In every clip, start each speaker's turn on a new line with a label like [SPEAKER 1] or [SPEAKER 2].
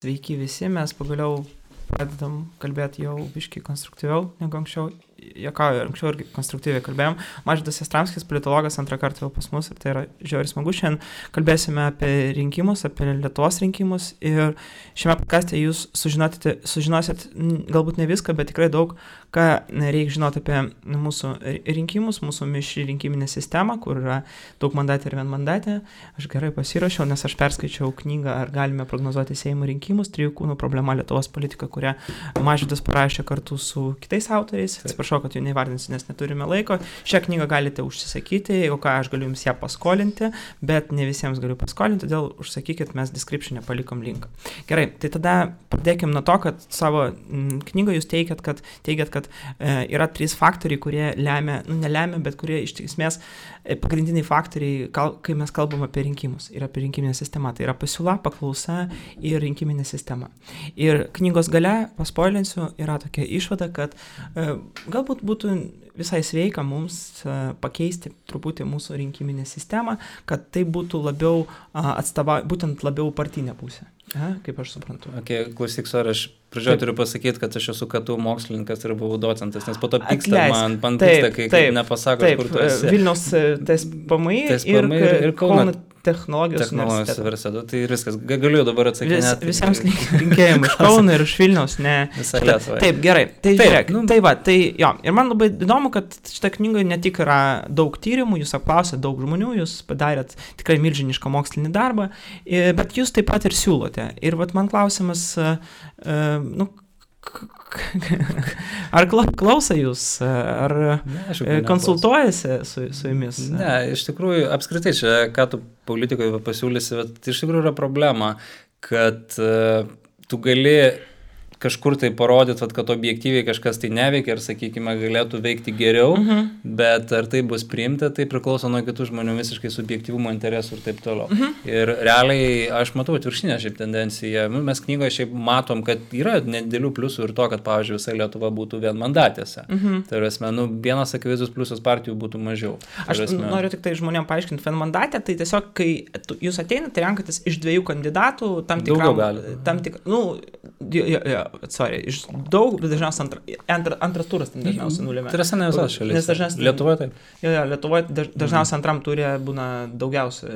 [SPEAKER 1] Sveiki visi, mes pagaliau pradedam kalbėti jau biškai konstruktyviau negu anksčiau. Anksčiau irgi konstruktyviai kalbėjom. Mažvydas Jastramskis, politologas, antrą kartą jau pas mus ir tai yra žiauriai smagu. Šiandien kalbėsime apie rinkimus, apie Lietuvos rinkimus ir šiame podcaste jūs sužinosit galbūt ne viską, bet tikrai daug, ką reikia žinoti apie mūsų rinkimus, mūsų mišri rinkiminę sistemą, kur yra daug mandatė ir vienmandatė. Aš gerai pasirašiau, nes aš perskaičiau knygą Ar galime prognozuoti Seimo rinkimus, 3 kūnų problema Lietuvos politika, kurią Mažvydas parašė kartu su kitais autoriais. Atsiprašau, kad jų neįvardinsiu, nes neturime laiko. Šią knygą galite užsisakyti, jeigu ką, aš galiu jums ją paskolinti, bet ne visiems galiu paskolinti, todėl užsakykit, mes description'e palikom linką. Gerai, tai tada pradėkim nuo to, kad savo knygą jūs teigiat, kad yra 3 faktoriai, kurie nelemia, bet kurie iš esmės pagrindiniai faktoriai, kai mes kalbam apie rinkimus ir apie rinkiminę sistemą. Tai yra pasiūla, paklausa ir rinkiminė sistema. Ir knygos gale, paspoilinsiu, yra tokia išvada, kad galbūt būtų visai sveika mums pakeisti truputį mūsų rinkiminę sistemą, kad tai būtų labiau būtent labiau partinė pusė. Kaip aš suprantu.
[SPEAKER 2] Klausyk, aš pradžioje turiu pasakyti, kad aš esu KTU mokslininkas ir buvau docentas, nes po to pyksta man pyksta, kai nepasako, kur tu esi.
[SPEAKER 1] Vilniaus TSPMI ir Kauno technologijos
[SPEAKER 2] universiteto. Tai ir viskas. Galiu dabar atsakinėti.
[SPEAKER 1] Visiems linkėjimai iš Kauno ir iš Vilniaus.
[SPEAKER 2] Visą Lietuvą.
[SPEAKER 1] Taip, gerai. Tai žiūrėk. Ir man labai įdomu, kad šitą knygą ne tik yra daug tyrimų, jūs apklausėt daug žmonių, jūs padarėt tikrai milžinišką mokslinį darbą, bet jūs taip pat ir siūlote. Ir vat man klausimas, ar klauso jūs, ar konsultuojasi su jumis?
[SPEAKER 2] Ne, iš tikrųjų, apskritai čia, ką tu politikoje pasiūlysi, bet iš tikrųjų yra problema, kad tu gali kažkur tai parodyti, kad objektyviai kažkas tai neveikia ir, sakykime, galėtų veikti geriau, bet ar tai bus priimta, tai priklauso nuo kitų žmonių visiškai subjektyvumo interesų ir taip toliau. Ir realiai aš matau atvirkštinę šiaip tendenciją. Mes knygoje šiaip matom, kad yra nedėlių pliusų ir to, kad, pavyzdžiui, visa Lietuva būtų vienmandatėse. Tai yra, vienas akivaizdus pliusas partijų būtų mažiau.
[SPEAKER 1] Aš noriu tik tai žmonėm paaiškinti, vienmandatė, tai tiesiog, kai jūs ateinate, renkatės iš 2 kandidatų, iš daug, bet dažniausiai antras turas ten dažniausiai nulėmė.
[SPEAKER 2] Tai yra ne visas šalis. Lietuvoje taip.
[SPEAKER 1] Lietuvoje dažniausiai antram turė būna daugiausia.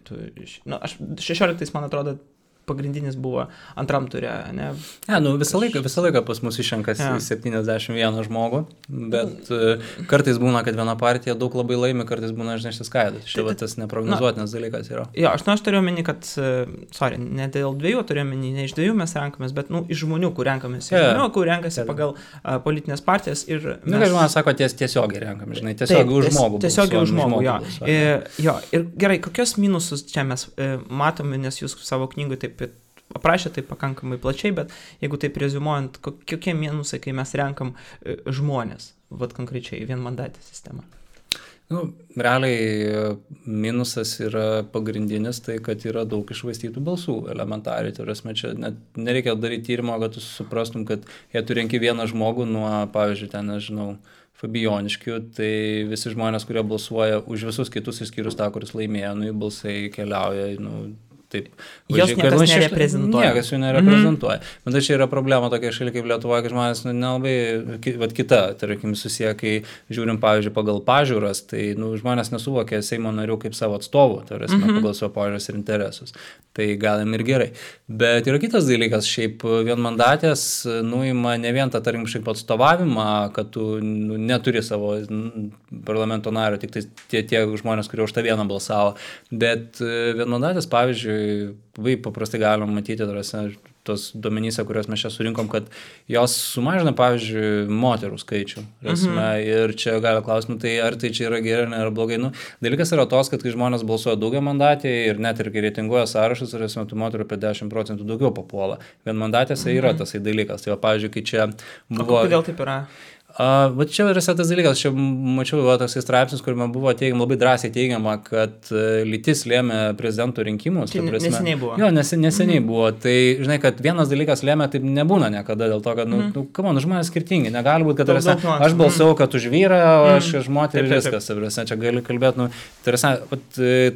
[SPEAKER 1] 16, man atrodo, pagrindinis buvo antram turė, ne?
[SPEAKER 2] Visą laiką pas mus išrenkas 71 žmogų, bet kartais būna, kad viena partija daug labai laimi, kartais būna išsiskaido. Štai tas neprognozuotinas dalykas yra.
[SPEAKER 1] Aš turiu omeny, kad, ne dėl 2 turiu omeny, ne iš 2 mes renkamės, bet iš žmonių, kur renkamės. Žmonių, kur renkasi pagal politinės partijas ir...
[SPEAKER 2] Žmonės sako, tiesiogiai renkamės, žinai, tiesiogiai už žmogų.
[SPEAKER 1] Tiesiogiai už žmogų, jo. Ir gerai, kokios minusus čia mes matome, nes jūs savo knygui taip aprašė tai pakankamai plačiai, bet jeigu taip reziumuojant, kokie minusai, kai mes renkam žmonės, konkrečiai vienmandatę sistemą?
[SPEAKER 2] Realiai minusas yra pagrindinis, tai kad yra daug iššvaistytų balsų elementariai. Tai yra, čia net nereikia daryti tyrimo, kad tu suprastum, kad jei tu renki vieną žmogų nuo, pavyzdžiui, ten, nežinau, Fabijoniškių, tai visi žmonės, kurie balsuoja už visus kitus išskyrus tą, kuris laimėjo, jų balsai keliauja, taip.
[SPEAKER 1] Jos niekas nereprezentuoja.
[SPEAKER 2] Niekas jų nereprezentuoja. Bet čia yra problema tokia šalia kaip Lietuvoje, kad žmonės nelabai, kita, tarkim, susiję, kai žiūrim, pavyzdžiui, pagal pažiūras, tai žmonės nesuvokia Seimo narių kaip savo atstovų, tai yra pagal savo pažiūras ir interesus. Tai galim ir gerai. Bet yra kitas dalykas, šiaip vienmandatės nuima ne vien tą, tarkim, šiaip atstovavimą, kad tu neturi savo parlamento nario, tik tai tie žmonės, kurie už tą vieną balsavo, bet vienmandatės, pavyzdžiui, paprastai galim matyti tos duomenyse, kuriuos mes čia surinkom, kad jos sumažina, pavyzdžiui, moterų skaičių. Ir čia gali klausimų, tai ar tai čia yra gerai, ar blogai. Dalykas yra tos, kad kai žmonės balsuoja daugiamandatėje ir net ir kai reitinguoja sąrašus, tų moterų apie 10% daugiau papuola. Vienmandatėse yra tasai dalykas. Tai pavyzdžiui, kai čia buvo...
[SPEAKER 1] Kodėl taip yra?
[SPEAKER 2] Va čia yra tas dalykas, čia mačiau toks straipsnis, kuriame buvo labai drąsiai teigiama, kad lytis lėmė prezidento rinkimus.
[SPEAKER 1] Tai neseniai buvo.
[SPEAKER 2] Jo, neseniai buvo. Tai, žinai, kad vienas dalykas lėmė, taip nebūna niekada, dėl to, kad, žmonės skirtingi. Negali būti, kad aš balsavau, kad už vyrą, o aš už moterį ir viskas. Čia gali kalbėti,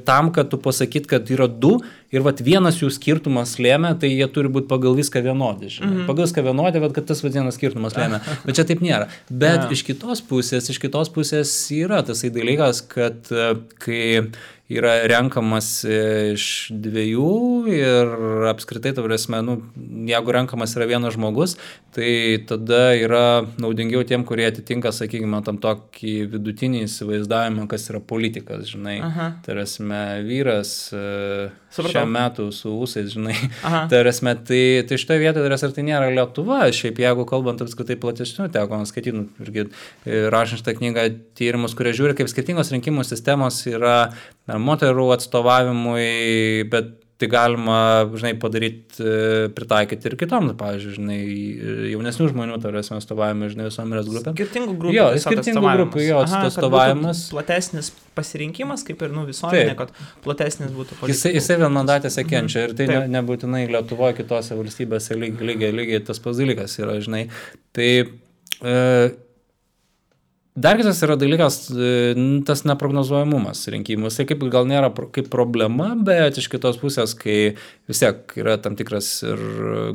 [SPEAKER 2] tam, kad tu pasakyt, kad yra du ir vienas jų skirtumas lėmė, tai jie turi būti pagal viską vienodi. Pagal viską vienodi, kad tas vienas skirtumas lėmė. Bet čia taip nėra. Bet iš kitos pusės yra tasai dalykas, kad kai yra renkamas iš dviejų ir apskritai, jeigu renkamas yra vienas žmogus, tai tada yra naudingiau tiem, kurie atitinka, sakykime, tam tokį vidutinį įsivaizdavimą, kas yra politikas, žinai. Vyras šiam metų su ūsais, žinai. Tai šitoje vietoje, tai nėra Lietuva, šiaip jeigu kalbant apskritai platesnių, teko skaityti, irgi rašant šitą knygą tyrimus, kurie žiūri, kaip skirtingos rinkimų sistemos yra moterų atstovavimui, bet tai galima, žinai, padaryti, pritaikyti ir kitom, pavyzdžiui, žinai, jaunesnių žmonių, atstovavimui, žinai, visuomenės grupėm.
[SPEAKER 1] Skirtingų grupų.
[SPEAKER 2] Jo, skirtingų grupų, atstovavimas.
[SPEAKER 1] Platesnis pasirinkimas, kaip ir visuomenė, kad platesnis būtų politikų.
[SPEAKER 2] Jisai vienmandatėse kenčia ir tai nebūtinai Lietuvoje, kitose valstybėse lygiai tas pats dalykas yra, žinai. Tai dar kitas yra dalykas, tas neprognozuojamumas rinkimus. Tai kaip gal nėra kaip problema, bet iš kitos pusės, kai vis tiek yra tam tikras ir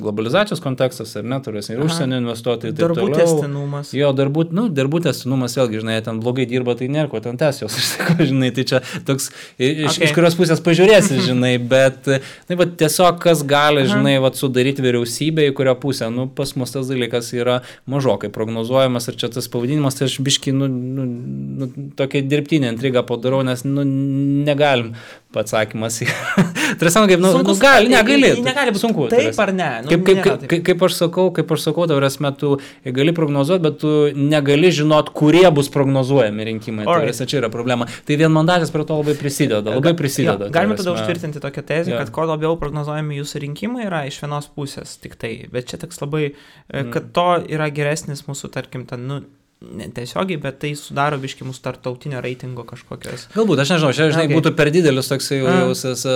[SPEAKER 2] globalizacijos kontekstas, ar neturės, ir užsienio investuotojai.
[SPEAKER 1] Darbų tęstinumas.
[SPEAKER 2] Jo, darbų tęstinumas, vėlgi, žinai, ten blogai dirba, tai nėra ko ten tęs jos, žinai, tai čia toks, iš kurios pusės pažiūrėsi, žinai, bet tiesiog kas gali, žinai, sudaryti vyriausybę, į kurią pusę, pas mus tas dalykas yra mažokai prognozuojamas ir čia tas pavadinimas, tai aš biškį tokia dirbtinė intriga padarau, nes negalim atsakymas. Trasant, kaip, negali
[SPEAKER 1] būti
[SPEAKER 2] sunku.
[SPEAKER 1] Taip ar ne?
[SPEAKER 2] Kaip aš sakau, tu gali prognozuoti, bet tu negali žinot, kurie bus prognozuojami rinkimai. Čia yra problema. Tai vienmandatės prie to labai prisideda.
[SPEAKER 1] Galime tada užtvirtinti tokią tezę, kad kuo labiau prognozuojami jūsų rinkimai yra iš vienos pusės tik tai. Bet čia toks labai, kad to yra geresnis mūsų, tarkim, netiesiogiai, bet tai sudaro biškį mūsų tarptautinio reitingo kažkokios.
[SPEAKER 2] Galbūt, aš nežinau, čia žinai, būtų per didelis toks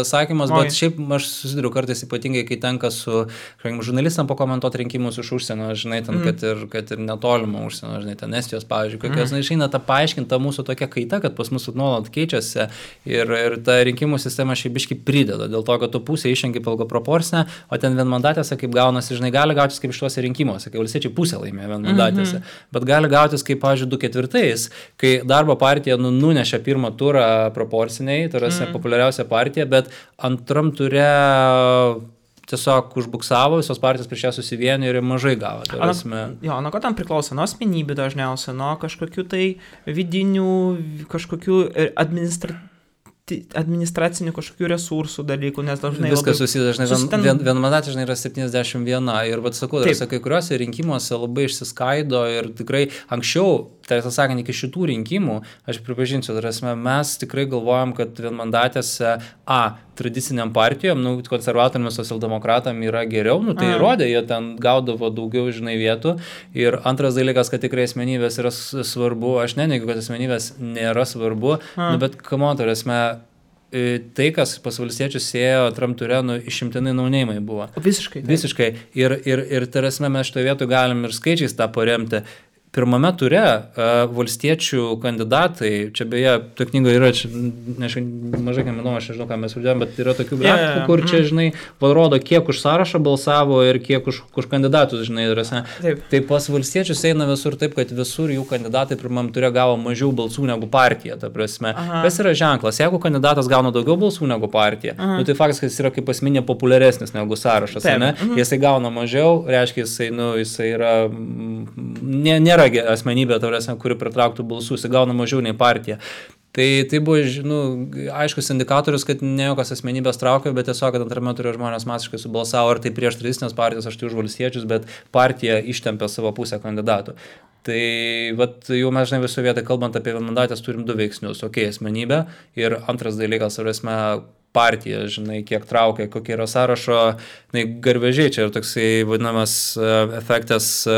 [SPEAKER 2] sakymas, bet šiaip aš susiduriu kartais ypatingai, kai tenka su žurnalistam pakomentuoti rinkimus iš užsienio, žinai, ten, kad ir netolimo užsienio, žinai, ten Estijos, pavyzdžiui, kokios, išeina ta paaiškinta mūsų tokia kaita, kad pas mus nuolat keičiasi ir ta rinkimų sistema šiaip biškį prideda, dėl to, kad tu pusė išrenki pagal proporcinę, o ten vienmandatėse, kaip gaunasi, žinai, gali gautis kaip šituose rinkimuose, kai valstiečiai pusė laimėjo vienmandatėse, bet gali gautis kaip, pavyzdžiui, 2/4, kai darbo partija nunešė pirmą turą proporciniai, tai yra populiariausia partija, bet antram ture tiesiog užbuksavo, visos partijos prieš ją susivienė ir mažai gavo.
[SPEAKER 1] Nuo ko tam priklauso? Nuo asmenybių dažniausiai, nuo kažkokių tai vidinių, kažkokių administracinių kažkokių resursų dalykų, nes dažnai
[SPEAKER 2] viskas susidažnai, vienmandatė žinai yra 71 ir sakau, kai kuriuose rinkimuose labai išsiskaido ir tikrai anksčiau, tiesą sakant, iki šitų rinkimų, aš pripažinsiu, mes tikrai galvojam, kad vienmandatėse tradiciniam partijom, konservatoriam, socialdemokratam yra geriau, tai įrodė, jie ten gaudavo daugiau, žinai, vietų. Ir antras dalykas, kad tikrai asmenybės yra svarbu, aš neneigiu, kad asmenybės nėra svarbu, bet tai, kas pas valstiečius ėjo antram ture, išimtinai naunėjimai buvo. Visiškai. Ir tarasme mes šitoje vietoje galim ir skaičiais tą paremti. Pirmame ture valstiečių kandidatai, čia beje, to knygoje yra, mažai ką manau, aš nežinau, ką mes vadėjom, bet yra tokių grafikų, kur čia, žinai, rodo, kiek už sąrašą balsavo ir kiek už kandidatus, žinai, tai pas valstiečius eina visur taip, kad visur jų kandidatai pirmam ture gavo mažiau balsų negu partija, ta prasme. Kas yra ženklas? Jeigu kandidatas gauna daugiau balsų negu partija, tai faktas, kad jis yra kaip asmenė populiaresnis negu sąrašas, ne? Jisai gauna mažiau, reiškia, jisai yra, nėra asmenybė, kuri pritrauktų balsus, gauna mažiau nei partija. Tai buvo, aiškus indikatorius, kad ne jokios asmenybės traukia, bet tiesiog, kad antrame ture žmonės masiškai subalsavo, ar tai prieš tradicinės partijas, aš tai už valstiečius, bet partija ištempė savo pusę kandidatų. Tai jau mes, žinai, viso vietą, kalbant apie vienmandatės, turim du veiksnius. Asmenybė ir antras dalykas, partija, žinai, kiek traukia, kokie yra sąrašo, garvežiai, čia yra toksai vadinamas efektas,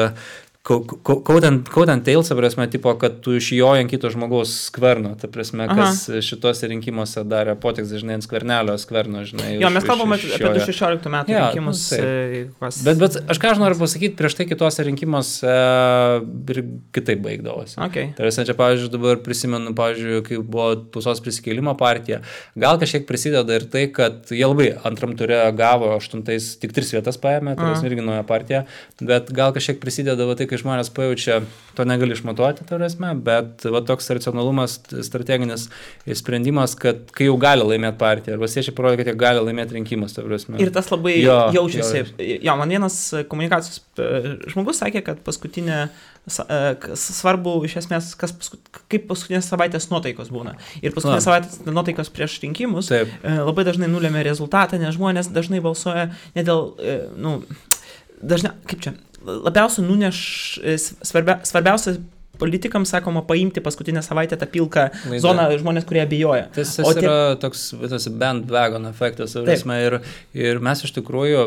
[SPEAKER 2] Kautent tails, ta prasme, tipo, kad tu išjoji ant kito žmogaus skverno, ta prasme, kas šituose rinkimuose darė potiks, žinai, ant skvernelio skverno, žinai.
[SPEAKER 1] Jo, mes kalbame apie 2016 metų rinkimus.
[SPEAKER 2] Bet aš ką aš noriu pasakyti, prieš tai kitose rinkimuose ir kitaip baigdavosi.
[SPEAKER 1] Okay.
[SPEAKER 2] Tai čia, pavyzdžiui, dabar prisimenu, pavyzdžiui, kai buvo Tausos prisikėlimo partija, gal kažkiek prisideda ir tai, kad jie labai antram ture gavo 8, tik 3 vietas paėmė, tai irgi nauja partija, bet gal kažkiek prisideda tai, kai žmonės pajaučia, to negali išmatuoti, bet toks racionalumas, strateginis sprendimas, kad kai jau gali laimėti partiją, ar valstiečiai parodė, kad jie gali laimėti rinkimus.
[SPEAKER 1] Ir tas labai jaučiasi. Jo, man vienas komunikacijos žmogus sakė, kad paskutinė svarbu iš esmės, kaip paskutinės savaitės nuotaikos būna. Ir paskutinės savaitės nuotaikos prieš rinkimus labai dažnai nulėmė rezultatą, nes žmonės dažnai balsuoja ne dėl, dažnai, kaip čia, labiausiai svarbiausia politikams, sakoma, paimti paskutinę savaitę tą pilką zoną žmonės, kurie abejoja.
[SPEAKER 2] Tas yra toks bandwagon efektas, ir mes iš tikrųjų,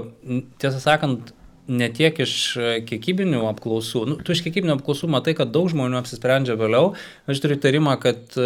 [SPEAKER 2] tiesą sakant, ne tiek iš kiekybinių apklausų, tu iš kiekybinių apklausų matai, kad daug žmonių apsisprendžia vėliau, aš turiu įtarimą, kad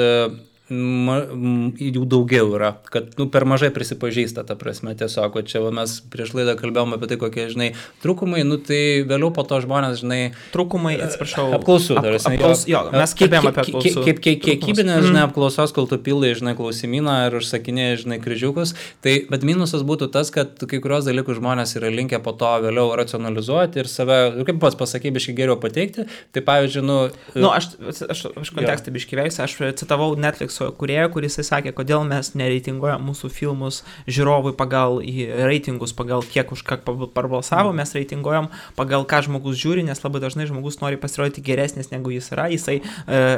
[SPEAKER 2] jų daugiau yra, kad per mažai prisipažįsta, ta prasme, tiesiog, čia mes prieš laidą kalbėjome apie tai, kokie, žinai, trūkumai, tai vėliau po to žmonės, žinai,
[SPEAKER 1] trūkumai, atsiprašau,
[SPEAKER 2] apklausų,
[SPEAKER 1] mes kalbėjome apie apklausų.
[SPEAKER 2] Kiekybinės, žinai, apklausos, kol tu pildai, žinai, klausimyną ir užsakinėjai, žinai, kryžiukus, bet minusas būtų tas, kad kai kurios dalykus žmonės yra linkę po to vėliau racionalizuoti ir save, kaip pats pasakai, biškai geriau pateikti, tai pavyzdžiui,
[SPEAKER 1] aš kontekstą biškai veisiu, aš citavau Netflix kūrėją, kuris sakė, kodėl mes nereitinguojam mūsų filmus žiūrovui pagal reitingus, pagal kiek už ką parbalsavo, mes reitinguojam pagal ką žmogus žiūri, nes labai dažnai žmogus nori pasirodyti geresnis negu jis yra, jisai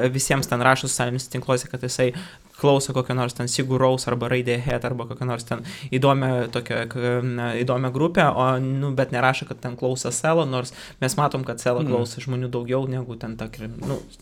[SPEAKER 1] visiems ten rašo socialiniuose tinkluose, kad jisai klauso kokio nors ten Sigur Rós arba Radiohead arba kokio nors ten įdomią grupę, bet nerašo, kad ten klauso Selo, nors mes matom, kad Selo klauso žmonių daugiau negu ten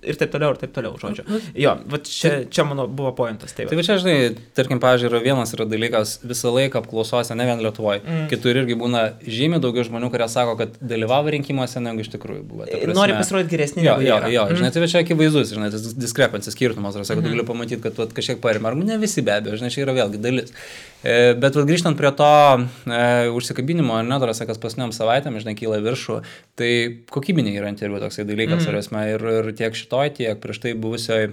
[SPEAKER 1] ir taip toliau, žodžiu. Jo, čia mano buvo pointas.
[SPEAKER 2] Tai va čia, žinai, tarkim, pavyzdžiui, vienas yra dalykas, visą laiką apklausose, ne vien Lietuvoje, kitur irgi būna žymiai daugiau žmonių, kurie sako, kad dalyvavo rinkimuose, negu iš tikrųjų buvo.
[SPEAKER 1] Nori pasirodyti geresnį.
[SPEAKER 2] Jo, žinai, tai čia akivaizdus, žinai, tas diskrepancijos skirtumas, tu gali pamatyti, kad kažkiek parima, ar ne visi be abejo, žinai, čia yra vėlgi dalis. Bet grįžtant prie to užsikabinimo, kas pasniom savaitėm, žinai, kyla viršų, tai kokybiniai yra interviu toksai dalykas, ir tiek šitoj, tiek prieš tai buvusioj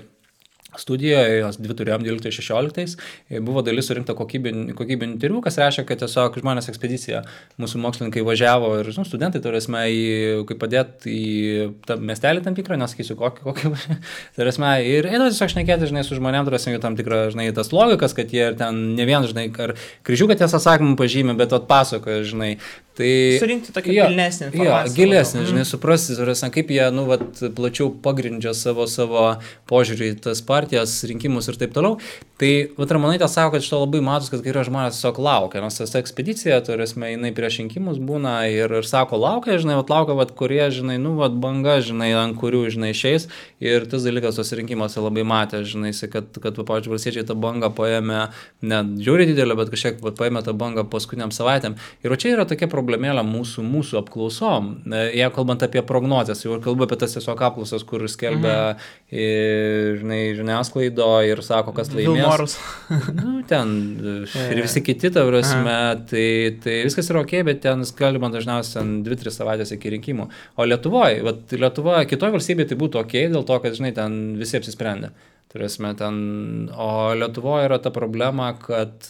[SPEAKER 2] studijoje, jos 2 turėjom 12-16, buvo dalis surinkta kokybinių interviu, kas reiškia, kad tiesiog žmonės ekspedicija, mūsų mokslininkai važiavo ir studentai, kaip padėti į tą miestelį tam tikrą, nesakysiu kokį ir eidavo tiesiog šnekėti, žinai, su žmonėm, jų tam tikrą, žinai, tas logikas, kad jie ir ten ne vien, žinai, ar kryžiuką tiesą sakymą pažymė, bet atpasakoja, žinai. Tai
[SPEAKER 1] surinkti tokią pilnesnį informaciją.
[SPEAKER 2] Gilesnį, žinai, suprasti, kaip jie, plačiau pagrindžia savo požiūrį į tas partijas, rinkimus ir taip toliau. Tai, Ramonaitė sako, kad šito labai matos, kad kai yra žmonės tiesiog laukia, nes tas ekspedicija, jinai prieš rinkimus būna ir sako, laukia, žinai, laukia, kurie, žinai, banga, žinai, ant kurių, žinai, išeis. Ir tas dalykas tos rinkimuose labai matė, žinai, kad pavyzdžiui, valstiečiai tą bangą paėmė, ne žiūri didelę, bet kažkiek paėmė tą bangą paskutiniam savaitėm. Ir čia yra tokia problemėlė mūsų apklausom. Jei kalbant apie prognozes, jau kalbu apie tas tiesiog apklausas, kur skelbia žiniasklaido ir sako, kas laimės. Ir visi kiti, ta prasme, tai viskas yra ok, bet ten skelbiama dažniausiai 2-3 savaitės iki rinkimų. O Lietuvoje, kitoje valstybėje tai būtų ok, dėl to, kad, žinai, ten visi apsisprendė. O Lietuvoje yra ta problema, kad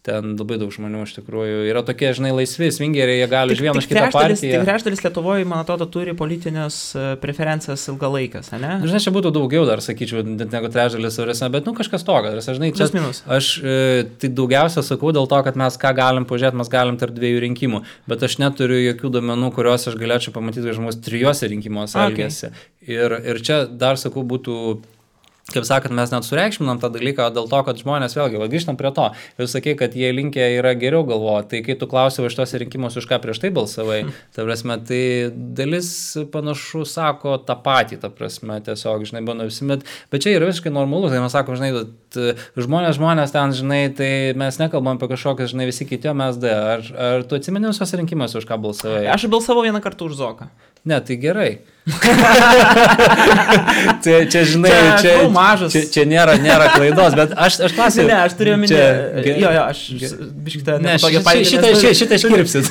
[SPEAKER 2] ten labai daug žmonių iš tikrųjų yra tokie, žinai, laisvi, svingeriai, jie gali iš vieną iš kitą partiją.
[SPEAKER 1] Tik trečdalis Lietuvoje, man atrodo, turi politinės preferencijas ilgalaikės, ne?
[SPEAKER 2] Žinai, čia būtų daugiau dar, sakyčiau, negu trečdalis, bet, kažkas tokio. Žinai, čia, aš tai daugiausia sakau dėl to, kad mes ką galim pažiūrėti, mes galim tarp 2 rinkimų, bet aš neturiu jokių duomenų, kuriuos aš galėčiau pamatyti, kad žmogus 3 rinkimuose elgiasi. Ir čia dar, sakau, būtų kaip sakant, mes net sureikšminam tą dalyką dėl to, kad žmonės vėlgi, grįžtam prie to, jūs sakei, kad jie linkę yra geriau galvoti, tai kai tu klausai iš tos rinkimus, už ką prieš tai balsavai, ta prasme, tai dalis panašu sako tą patį, ta prasme, tiesiog, žinai, bando visi, bet čia yra visiškai normalu, tai mes sakom, žinai, žmonės ten, žinai, tai mes nekalbam apie kažkokias, žinai, visi kiti, o mes ar tu atsimeni visos rinkimus, už ką balsavai?
[SPEAKER 1] Aš balsavau vieną kartą už Zoką.
[SPEAKER 2] Ne, tai gerai. čia, žinai, čia nėra klaidos, bet aš klausiu.
[SPEAKER 1] Ne, aš turėjau minėti. Aš biškitą
[SPEAKER 2] šitą iškirpsit.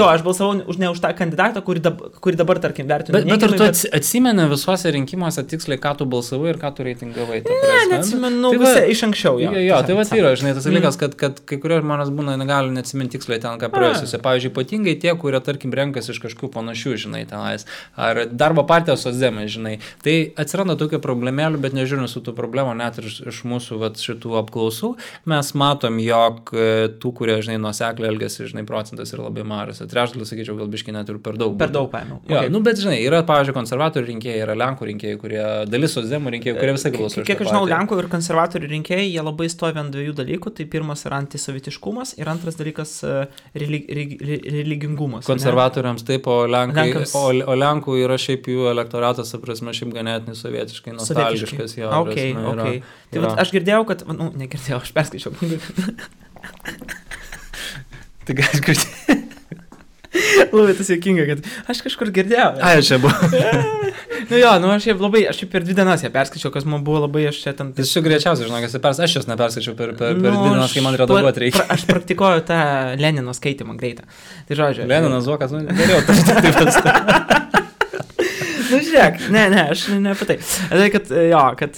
[SPEAKER 1] Aš balsavau ne už tą kandidatą, kurį dabar, tarkim, vertinu.
[SPEAKER 2] Bet ar tu atsimeni visuose rinkimuose tiksliai, ką tu balsavai ir ką tu reitingavai?
[SPEAKER 1] Ne, neatsimenu iš anksčiau.
[SPEAKER 2] Jo, tai yra, žinai, tas dalykas, kad kai kurie žmonės būna negali neatsiminti tiksliai ten, ką praėjusiuose. Pavyzdžiui, ypatingai tie, kurie, tarkim, renkasi iš kažkokių panašių, žinai, tenais, ar darbo partijos socdemai, žinai. Tai atsiranda tokių problemėlių, bet nežiūrint su tų problemų, net ir iš mūsų šitų apklausų, mes matom, jog tų, kurie, žinai, nuosekliai elgiasi, žinai, procentas yra labai mažas. Trečdalis, sakyčiau, gal biškai net ir per daug.
[SPEAKER 1] Per daug paėmiau.
[SPEAKER 2] Jo, okay. Bet, žinai, yra, pavyzdžiui, konservatorių rinkėjai, yra lenkų rinkėjai, kurie dalis socdemų rinkėjų, kurie visai balsuoja.
[SPEAKER 1] Kiek žinau, lenkų ir konservatorių rinkėjai, jie labai stovi ant dviejų dalykų. Tai pirmas yra antisovietiškumas ir antras dalykas religingumas.
[SPEAKER 2] Konservatoriams taip, o Lenkų yra šiaip jų elektoratas, prasme, šiaip ganėtinai sovietiškai nostalgiškas. Jo,
[SPEAKER 1] okay. Tai vat, aš girdėjau, kad, negirdėjau, aš perskaičiau knygą.
[SPEAKER 2] Tai gal girdėjau.
[SPEAKER 1] Labai tas juokinga, kad aš kažkur girdėjau.
[SPEAKER 2] Čia buvo.
[SPEAKER 1] Aš šiaip per 2 dienas ją perskaičiau, kas man buvo labai, aš čia ten...
[SPEAKER 2] Jis šiuo greičiausiai, žinok, aš jos neperskaičiau per 2 dienas, kai man redaguoti reikia.
[SPEAKER 1] Aš praktikuoju tą Lenino skaitimą greitą. Tai žodžiu.
[SPEAKER 2] Leninas Zokas, geriau, taip.
[SPEAKER 1] Žiūrėk, aš ne apie tai. Kad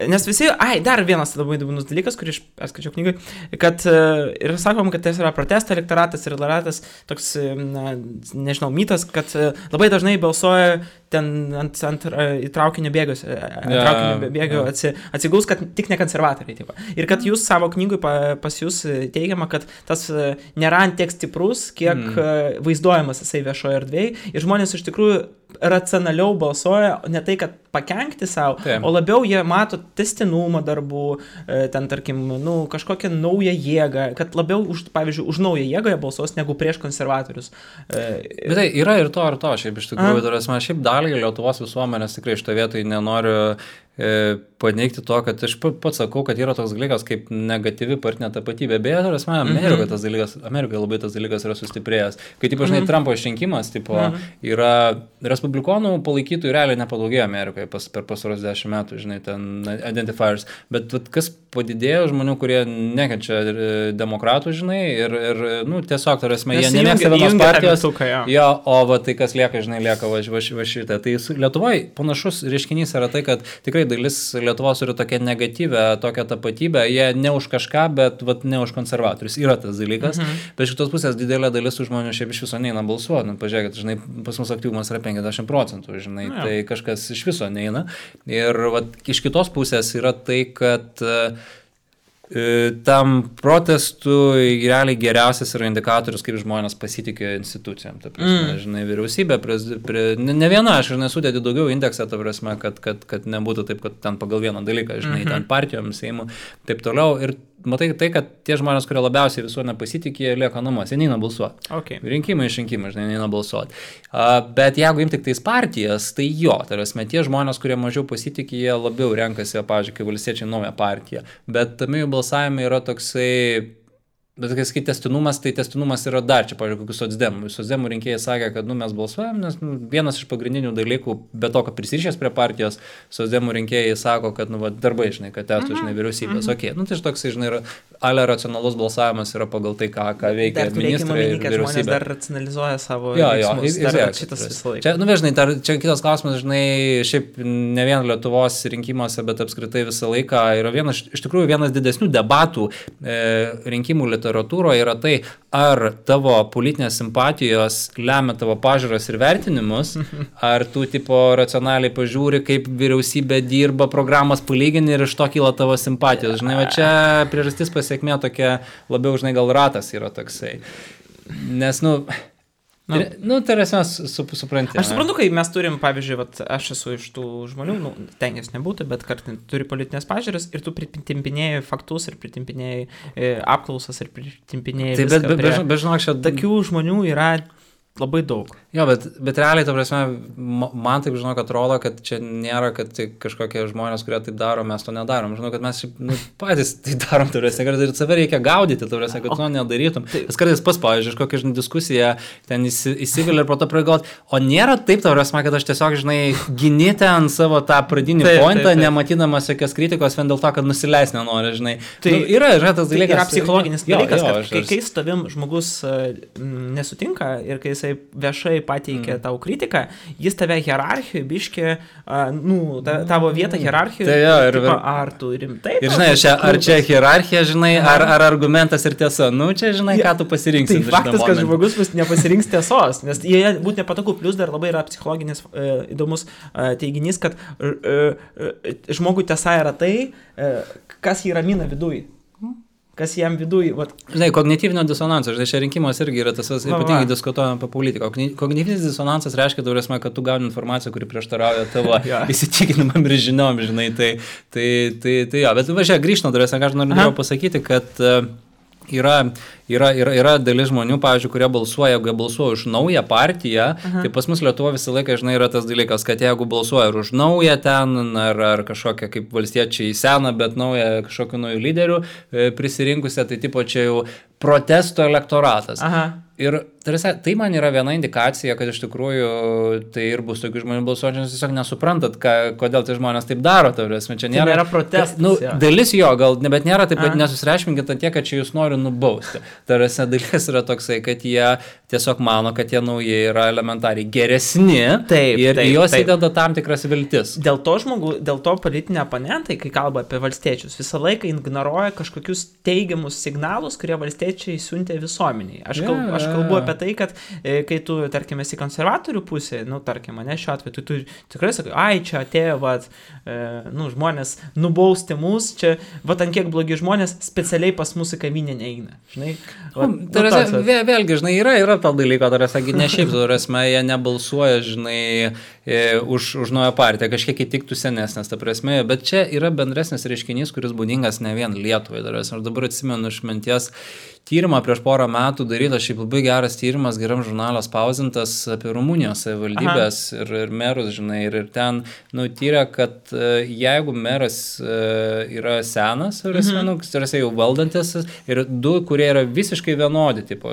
[SPEAKER 1] nes visi, dar vienas labai įdomus dalykas, kurį aš perskaičiau knygai, kad ir sakom, kad tai yra protesto elektoratas ir elektoratas toks, nežinau, mitas, kad labai dažnai balsuoja ten ant traukinio bėgio atsigaus, kad tik ne konservatoriai. Taip. Ir kad jūs savo knygui pas jūs teigiama, kad tas nėra tiek stiprus, kiek vaizduojamas jisai viešoje erdvėje ir žmonės iš tikrųjų racionaliau balsuoja, ne tai, kad pakenkti savo, o labiau jie mato testinumą darbų, ten, tarkim, kažkokią naują jėgą, kad labiau, pavyzdžiui, už naują jėgą jie balsuos negu prieš konservatorius.
[SPEAKER 2] Bet tai yra ir to, šiaip iš tikrųjų, šiaip dalį Lietuvos visuomenės tikrai iš to vietoj nenoriu paneigti to, kad aš pats sakau, kad yra toks dalykas kaip negatyvi partinė tapatybė. Beje, Amerikoje labai tas dalykas yra sustiprėjęs. Kai, žinai, Trumpo išrinkimas, yra respublikonų palaikytojų realiai nepadaugėjo Amerikoje per pasaros 10 metų, žinai, ten identifiers. Bet kas padidėjo žmonių, kurie nekenčia demokratų, žinai, ir tiesiog, jie nemėgsta vienos partijos. Tai kas lieka, žinai, lieka va šitą. Tai Lietuvoje panašus reiškinys yra tai, kad tikrai dalis Lietuvos turi tokią negatyvę, tokią tapatybę, jie ne už kažką, bet ne už konservatorius. Yra tas dalykas, bet šitos pusės didelė dalis žmonių šiaip iš viso neina balsuoti. Pažiūrėkit, žinai, pas mus aktyvumas yra 50%, žinai, tai kažkas iš viso neina. Ir iš kitos pusės yra tai, kad tam protestui realiai geriausias yra indikatorius, kaip žmonės pasitikė institucijom. Ta prasme, žinai, vyriausybė, ne viena, aš nesudėti daugiau indeksą, ta prasme, kad nebūtų taip, kad ten pagal vieną dalyką, žinai, ten partijom, Seimu, taip toliau. Ir matai tai, kad tie žmonės, kurie labiausiai visuomenė pasitikė, lieka namuose, neina balsuoti.
[SPEAKER 1] Okay.
[SPEAKER 2] Rinkimai, žinai, neina balsuoti. Bet jeigu imti tik tais partijas, tai tai tie žmonės, kurie mažiau pasitikė, jie labiau renkasi, pavyzdžiui, kai valstiečiai naują partiją. Bet tame jų balsavime yra toksai... Bet kai testinumas yra dar čia, pavyzdžiui, kokius socdemų rinkėjai sakė, kad mes balsuojam, nes vienas iš pagrindinių dalykų, be to, kad prisirišęs prie partijos, socdemų rinkėjai sako, kad darbai, žinai, kad testų, žinai, vyriausybės. Okay. Tai toks, žinai, yra racionalus balsavimas yra pagal tai, ką veikia ministrai ir vyriausybė.
[SPEAKER 1] Dar racionalizuoja savo veiksmus. Šitas visą laiką.
[SPEAKER 2] Čia kitas klausimas, žinai, šiaip ne vien Lietuvos rinkimuose, bet apskritai visą laiką yra iš tikrųjų vienas didesnių debatų rinkimų literatūroje yra tai, ar tavo politinės simpatijos lemia tavo pažiūras ir vertinimus, ar tu racionaliai pažiūri, kaip vyriausybė dirba, programas palygini ir iš to kyla tavo simpatijos. Žinai, va čia priežastis pasiekmė tokia labiau, žinai, gal ratas yra toksai. Nes, Tai esmės supranti.
[SPEAKER 1] Aš suprantu, kai mes turim, pavyzdžiui, aš esu iš tų žmonių, tengiasi nebūtų, bet kartais turi politinės pažiūras ir tu pritimpinėjai faktus ir pritimpinėjai apklausas ir pritimpinėjai viską.
[SPEAKER 2] Bet žinok, čia...
[SPEAKER 1] Tokių žmonių yra labai daug.
[SPEAKER 2] Jo, bet realiai, ta prasme, man taip, žinok, atrodo, kad čia nėra, kad tai kažkokie žmonės, kurie taip daro, mes to nedarom. Žinau, kad mes patys tai darom, turėsime, kad ir save reikia gaudyti, turėsime, kad to nedarytum. Nes kartais pavyzdžiui, kokią diskusiją ten įsivilė ir po to pragalvot, o nėra taip, turėsime, kad aš tiesiog, gini ten savo tą pradinį pointą, nematydamas jokios kritikos, vien dėl to, kad nusileis nenori,
[SPEAKER 1] Tai
[SPEAKER 2] yra tas dalykas.
[SPEAKER 1] Yra psichologinis dalykas, kad kai su tavim žmogus nesutinka ir kai jisai viešai pateikia tau kritiką, jis tave hierarchijoje biškė, tavo vietą hierarchijoje, ar tu rimtai...
[SPEAKER 2] Ir ar čia hierarchija, ar argumentas ir tiesa, čia ką tu pasirinksi.
[SPEAKER 1] Tai faktas, kad žmogus nepasirinks tiesos, nes jie būtų nepatogu, plus dar labai yra psichologinis įdomus teiginys, kad žmogui tiesa yra tai, kas jį ramina viduj. Kas jam viduj...
[SPEAKER 2] Kognityvinio disonanso, čia rinkimas irgi yra tas, ypatingai diskutuojame apie politiką. Kognityvinis disonansas reiškia, kad tu gauni informaciją, kuri prieštarauja tavo įsitikinimam ir žiniom, tai bet grįžtant, ką aš noriu pasakyti, kad yra dalis žmonių, pavyzdžiui, kurie balsuoja, jeigu balsuoja už naują partiją, tai pas mus Lietuvoje visą laiką, yra tas dalykas, kad jeigu balsuoja už naują ten, ar kažkokią kaip valstiečiai seną, bet naują kažkokių naujų lyderių prisirinkusią, tai tipo čia jau protesto elektoratas. Ir tai man yra viena indikacija, kad iš tikrųjų tai ir bus tokių žmonių balsuojančių, nes tiesiog nesuprantat, kodėl tai žmonės taip daro. Čia
[SPEAKER 1] nėra protestas.
[SPEAKER 2] Dalis jo, bet nėra taip, kad nesusireikšminkite tiek, kad čia jūs nori nubausti. Dalis yra toksai, kad jie tiesiog mano, kad tie nauji yra elementariai geresni ir juos įdeda tam tikras viltis.
[SPEAKER 1] Dėl to politiniai oponentai, kai kalba apie valstiečius, visą laiką ignoruoja kažkokius teigiamus signalus, kurie valstiečiai siuntė visuomeniai. Aš kalbu apie tai, kad kai tu, tarkim, esi konservatorių pusė, tarkim, mane šiuo atveju, tu tikrai sakai, čia atėjo, žmonės nubausti mus, čia, ant kiek blogi žmonės specialiai pas mūsų kavinę neina.
[SPEAKER 2] Vėlgi, yra to dalyko, ne šiaip, jie nebalsuoja, už naują partiją, kažkiek įtiktų senesnės, ta prasme, bet čia yra bendresnis reiškinys, kuris būdingas ne vien Lietuvai. Aš dabar atsimenu iš minties tyrimą prieš porą metų darytas, šiaip labai geras tyrimas, geram žurnalą spausdintas apie Rumunijos savivaldybės ir merus, ir ten tyrė, kad jeigu meras yra senas, jau valdantis, ir du, kurie yra visiškai vienodi, tik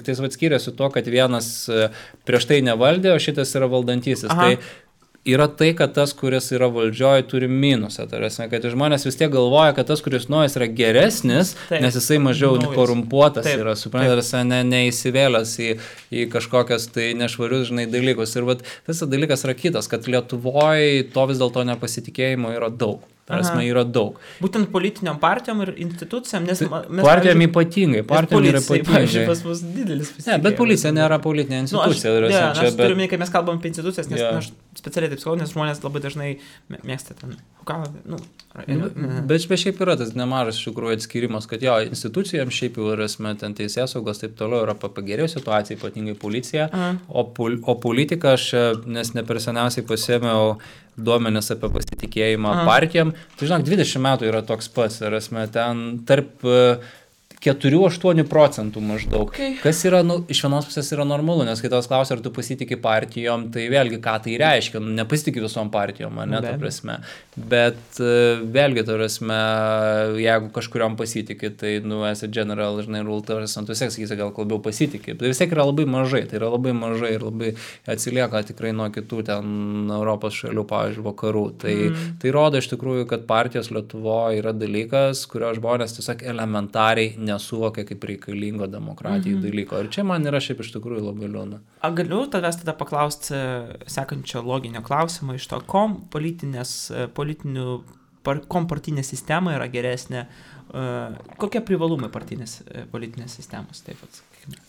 [SPEAKER 2] tai skiriasi to, kad vienas prieš tai nevaldė, o šitas yra valdantysis. Tai yra tai, kad tas, kuris yra valdžioje, turi minusą. Tai yra, kad žmonės vis tiek galvoja, kad tas, kuris naujas, yra geresnis, nes jisai mažiau korumpuotas yra, suprantat, neįsivėlęs į kažkokias tai nešvarius, dalykus. Ir tas dalykas yra kitas, kad Lietuvoje to vis dėlto nepasitikėjimo yra daug. Yra daug.
[SPEAKER 1] Būtent politiniam partijom ir institucijam, nes
[SPEAKER 2] partijom ypatingai,
[SPEAKER 1] pavyzdžiui, pas mus didelis pasitikėjimas.
[SPEAKER 2] Bet policija nėra politinė institucija.
[SPEAKER 1] Aš turiu minėti, kai mes kalbam apie institucijas, nes aš specialiai taip sakau, nes žmonės labai dažnai mėgsta ten.
[SPEAKER 2] Bet šiaip yra tas nemažas iš tikrųjų atskirimas, kad institucijams šiaip jau yra ten teisėsaugos, taip toliau yra pagerėjo situacija, ypatingai policija, o politika aš, nes ne per seniausiai pasėmiau duomenis apie pasitikėjimą partijom, tai 20 metų yra toks pats, ten tarp 4-8% maždaug. Kas yra, iš vienos pusės yra normalu, nes kai tavęs klausia, ar tu pasitikė partijom, tai vėlgi, ką tai reiškia, nepasitikė visom partijom, ta prasme. Bet vėlgi, ta prasme, jeigu kažkuriom pasitikė, tai, esi general, rule, tu sakysi, gal labiau pasitikė. Tai vis tiek yra labai mažai, ir labai atsilieka tikrai nuo kitų ten Europos šalių, pavyzdžiui, vakarų. Tai rodo iš tikrųjų, kad partijos Lietuvoje yra dalykas, kurio žmonės tiesiog elementariai nesuvokia kaip reikalingo demokratijai dalyko. Ir čia man yra šiaip iš tikrųjų labai liūdna.
[SPEAKER 1] Galiu tavęs tada paklausti sekančio loginio klausimo iš to, kom partinė sistema yra geresnė kokie privalumai politinės sistemos, taip pat.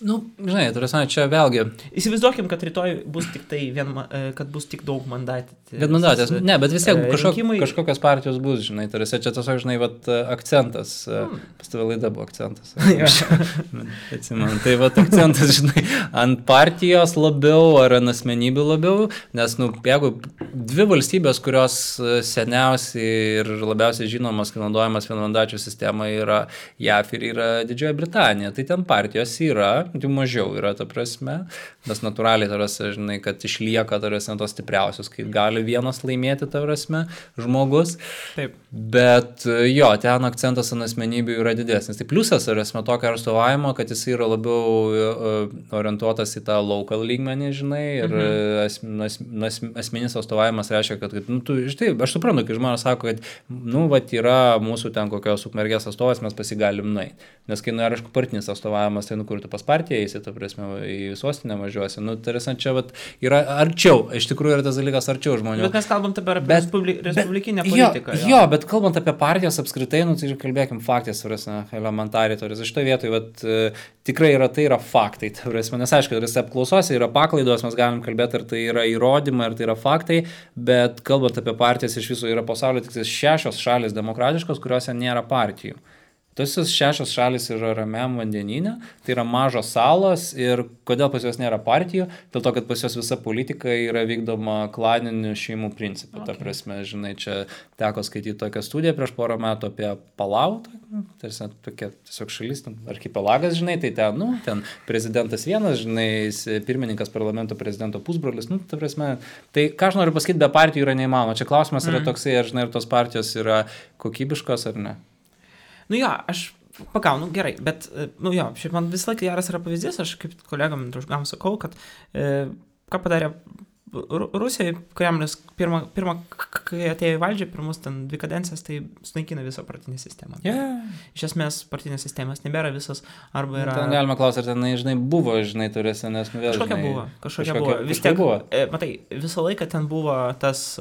[SPEAKER 2] Nu, žinai, čia vėlgi.
[SPEAKER 1] Įsivaizduokim, kad rytoj bus tik kad bus tik daug mandatės.
[SPEAKER 2] Ne, bet vis tiek kažkokios partijos bus, žinai, čia tiesiog, žinai, akcentas, pas tave laida buvo akcentas. Atsimenu, tai akcentas, žinai, ant partijos labiau ar ant asmenybių labiau, nes, jeigu dvi valstybės, kurios seniausiai ir labiausiai žinomas, kai naudojamas vienmandačių sistema yra JAV ir yra Didžioji Britanija, tai ten partijos yra, jų mažiau yra, ta prasme, nes natūraliai, žinai, kad išlieka, tos stipriausios, kai gali vienas laimėti, ta prasme, žmogus.
[SPEAKER 1] Taip.
[SPEAKER 2] Bet jo, ten akcentas ant asmenybių yra didesnis. Tai pliusas yra tokio atstovavimo, kad jis yra labiau orientuotas į tą local lygmenį, žinai, ir asmeninis atstovavimas reiškia, kad štai, aš suprantu, kai žmonės sako, kad yra mūsų ten kokios Ukmergės atstovas, mes pasigalim nueiti. Nes kai aišku, partinis atstovavimas, tai kur tu pas partiją eisi, ta prasme, į sostinę važiuosi. Čia yra arčiau, iš tikrųjų yra tas dalykas arčiau žmonių.
[SPEAKER 1] Bet mes kalbam apie respublikinę politiką.
[SPEAKER 2] Jo, bet kalbant apie partijas apskritai, tai kalbėkim faktės, elementariai, iš to vietoj, tikrai tai yra faktai, nes aišku, apklausose yra paklaidos, mes galim kalbėti, ar tai yra įrodymai, ar tai yra faktai, bet kalbant apie partijas, iš viso yra pasaulio tik 6 šalis demokratiškos, kuriuose nėra partijų. Tos 6 šalis yra Ramiam vandenyne, tai yra mažos salos ir kodėl pas juos nėra partijų, dėl to, kad pas juos visa politika yra vykdoma klaninių šeimų principų. Ta prasme, žinai, čia teko skaityti tokią studiją prieš porą metų apie Palau, tokia tiesiog šalis, archipelagas, žinai, tai ten prezidentas vienas, žinai, pirmininkas parlamento prezidento pusbrolis, ta prasme, tai ką aš noriu pasakyti, be partijų yra neįmanoma. Čia klausimas yra toksai, ar žinai, ar tos partijos yra kokybiškos ar ne.
[SPEAKER 1] Aš gerai, bet, šiaip man visą laiką geras yra pavyzdys, aš kaip kolegam, draugam sakau, kad ką padarė Rusija, Kremlius, pirmą, kai atėjo į valdžią, pirmus ten 2 kadencijas, tai sunaikina visą partinę sistemą. Iš esmės, partinės sistemas nebėra visas, arba yra...
[SPEAKER 2] Ten galima klausyti, ar ten, žinai, buvo, žinai, turėsi, nes vėl,
[SPEAKER 1] Kažkokia buvo. Vis tiek, matai, visą laiką ten buvo tas...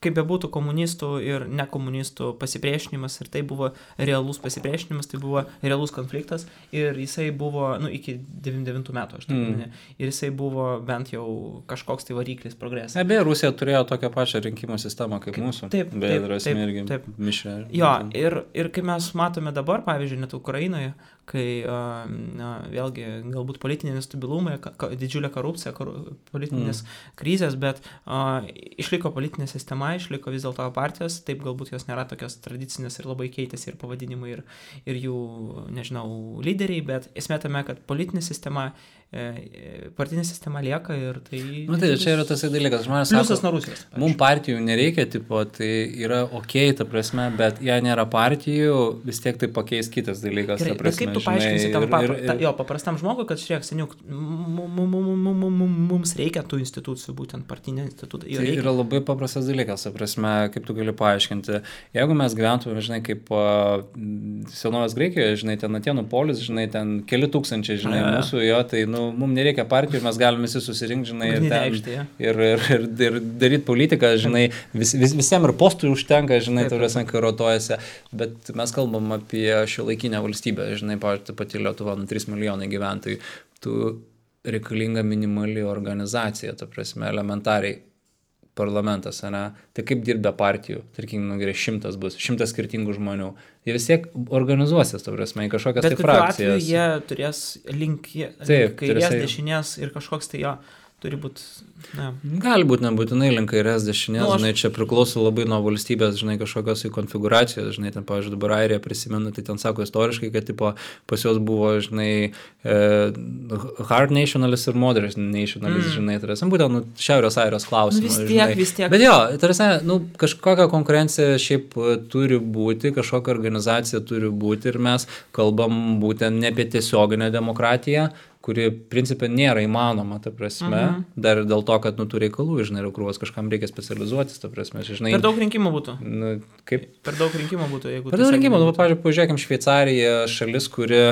[SPEAKER 1] kaip bebūtų komunistų ir nekomunistų pasipriešinimas, ir tai buvo realus pasipriešinimas, tai buvo realus konfliktas, ir jisai buvo, iki 99 metų, aš taip ir jisai buvo bent jau kažkoks tai variklis progresas.
[SPEAKER 2] Beje, Rusija turėjo tokią pačią rinkimų sistemą kaip mūsų.
[SPEAKER 1] Taip.
[SPEAKER 2] Mišrė.
[SPEAKER 1] Jo, ir kai mes matome dabar, pavyzdžiui, net Ukrainoje, kai vėlgi galbūt politiniai nestabilumai, didžiulė korupcija, politinės krizės, bet išliko politinė sistema, išliko vis dėlto partijos, taip galbūt jos nėra tokios tradicinės ir labai keitėsi ir pavadinimai ir jų, nežinau, lyderiai, bet esmė tame, kad politinė sistema partinė sistema lieka ir tai...
[SPEAKER 2] Tai čia yra tas dalykas, žmonės sako, mums partijų nereikia, tai yra okei, ta prasme, bet jei nėra partijų, vis tiek tai pakeis kitas dalykas.
[SPEAKER 1] Gerai, bet kaip tu paaiškinsi tam paprastam žmogui, kad žiūrėk, seniuk, mums reikia tų institucijų, būtent partinė institucija.
[SPEAKER 2] Tai yra labai paprastas dalykas, ta prasme, kaip tu gali paaiškinti. Jeigu mes gyventume, žinai, kaip senovės Graikijoje, žinai, ten Atėnų polis, žinai, ten keli tūkstančiai, žinai, mūsų jo, tai, mums nereikia partijų, mes galime visi susirinkti, žinai, ir daryti politiką, žinai, visiems ir postų užtenka, žinai, turėsim, kai rotuojasi, bet mes kalbam apie šiuolaikinę valstybę, žinai, pavyzdžiui, pati Lietuva, 3 milijonai gyventojų, tu reikalinga minimali organizacija, ta prasme, elementariai parlamentas, ne? Tai kaip dirbė partijų, tarkim, gerai, 100 bus, 100 skirtingų žmonių. Jie vis tiek organizuosis, ta prasme, į kažkokias tai frakcijas. Bet kokiu atveju
[SPEAKER 1] jie turės kairės, dešinės ir kažkoks tai jo turi būti...
[SPEAKER 2] Gali būti nebūtinai link kairės dešinės, žinai, čia priklauso labai nuo valstybės, žinai, kažkokios konfiguracijos, žinai, ten, pavyzdžiui, dabar Airija prisimenu, tai ten sako istoriškai, kad, tipo, pas juos buvo, žinai, hard nationalist ir moderate nationalist, žinai, tai yra, būtent, Šiaurės Airijos klausimas,
[SPEAKER 1] vis tiek.
[SPEAKER 2] Bet jo, tai yra, kažkokia konkurencija šiaip turi būti, kažkokia organizacija turi būti ir mes kalbam būtent ne apie tiesioginę demokratiją, kuri principė nėra įmanoma, ta prasme, dar dėl to, kad tų reikalų, žinai, ir krūvas kažkam reikia specializuotis, ta prasme, žinai.
[SPEAKER 1] Per daug rinkimų būtų.
[SPEAKER 2] Kaip?
[SPEAKER 1] Per daug rinkimų būtų, jeigu...
[SPEAKER 2] Per daug rinkimų, pavyzdžiui, pažiūrėkim, Šveicarija šalis, kuri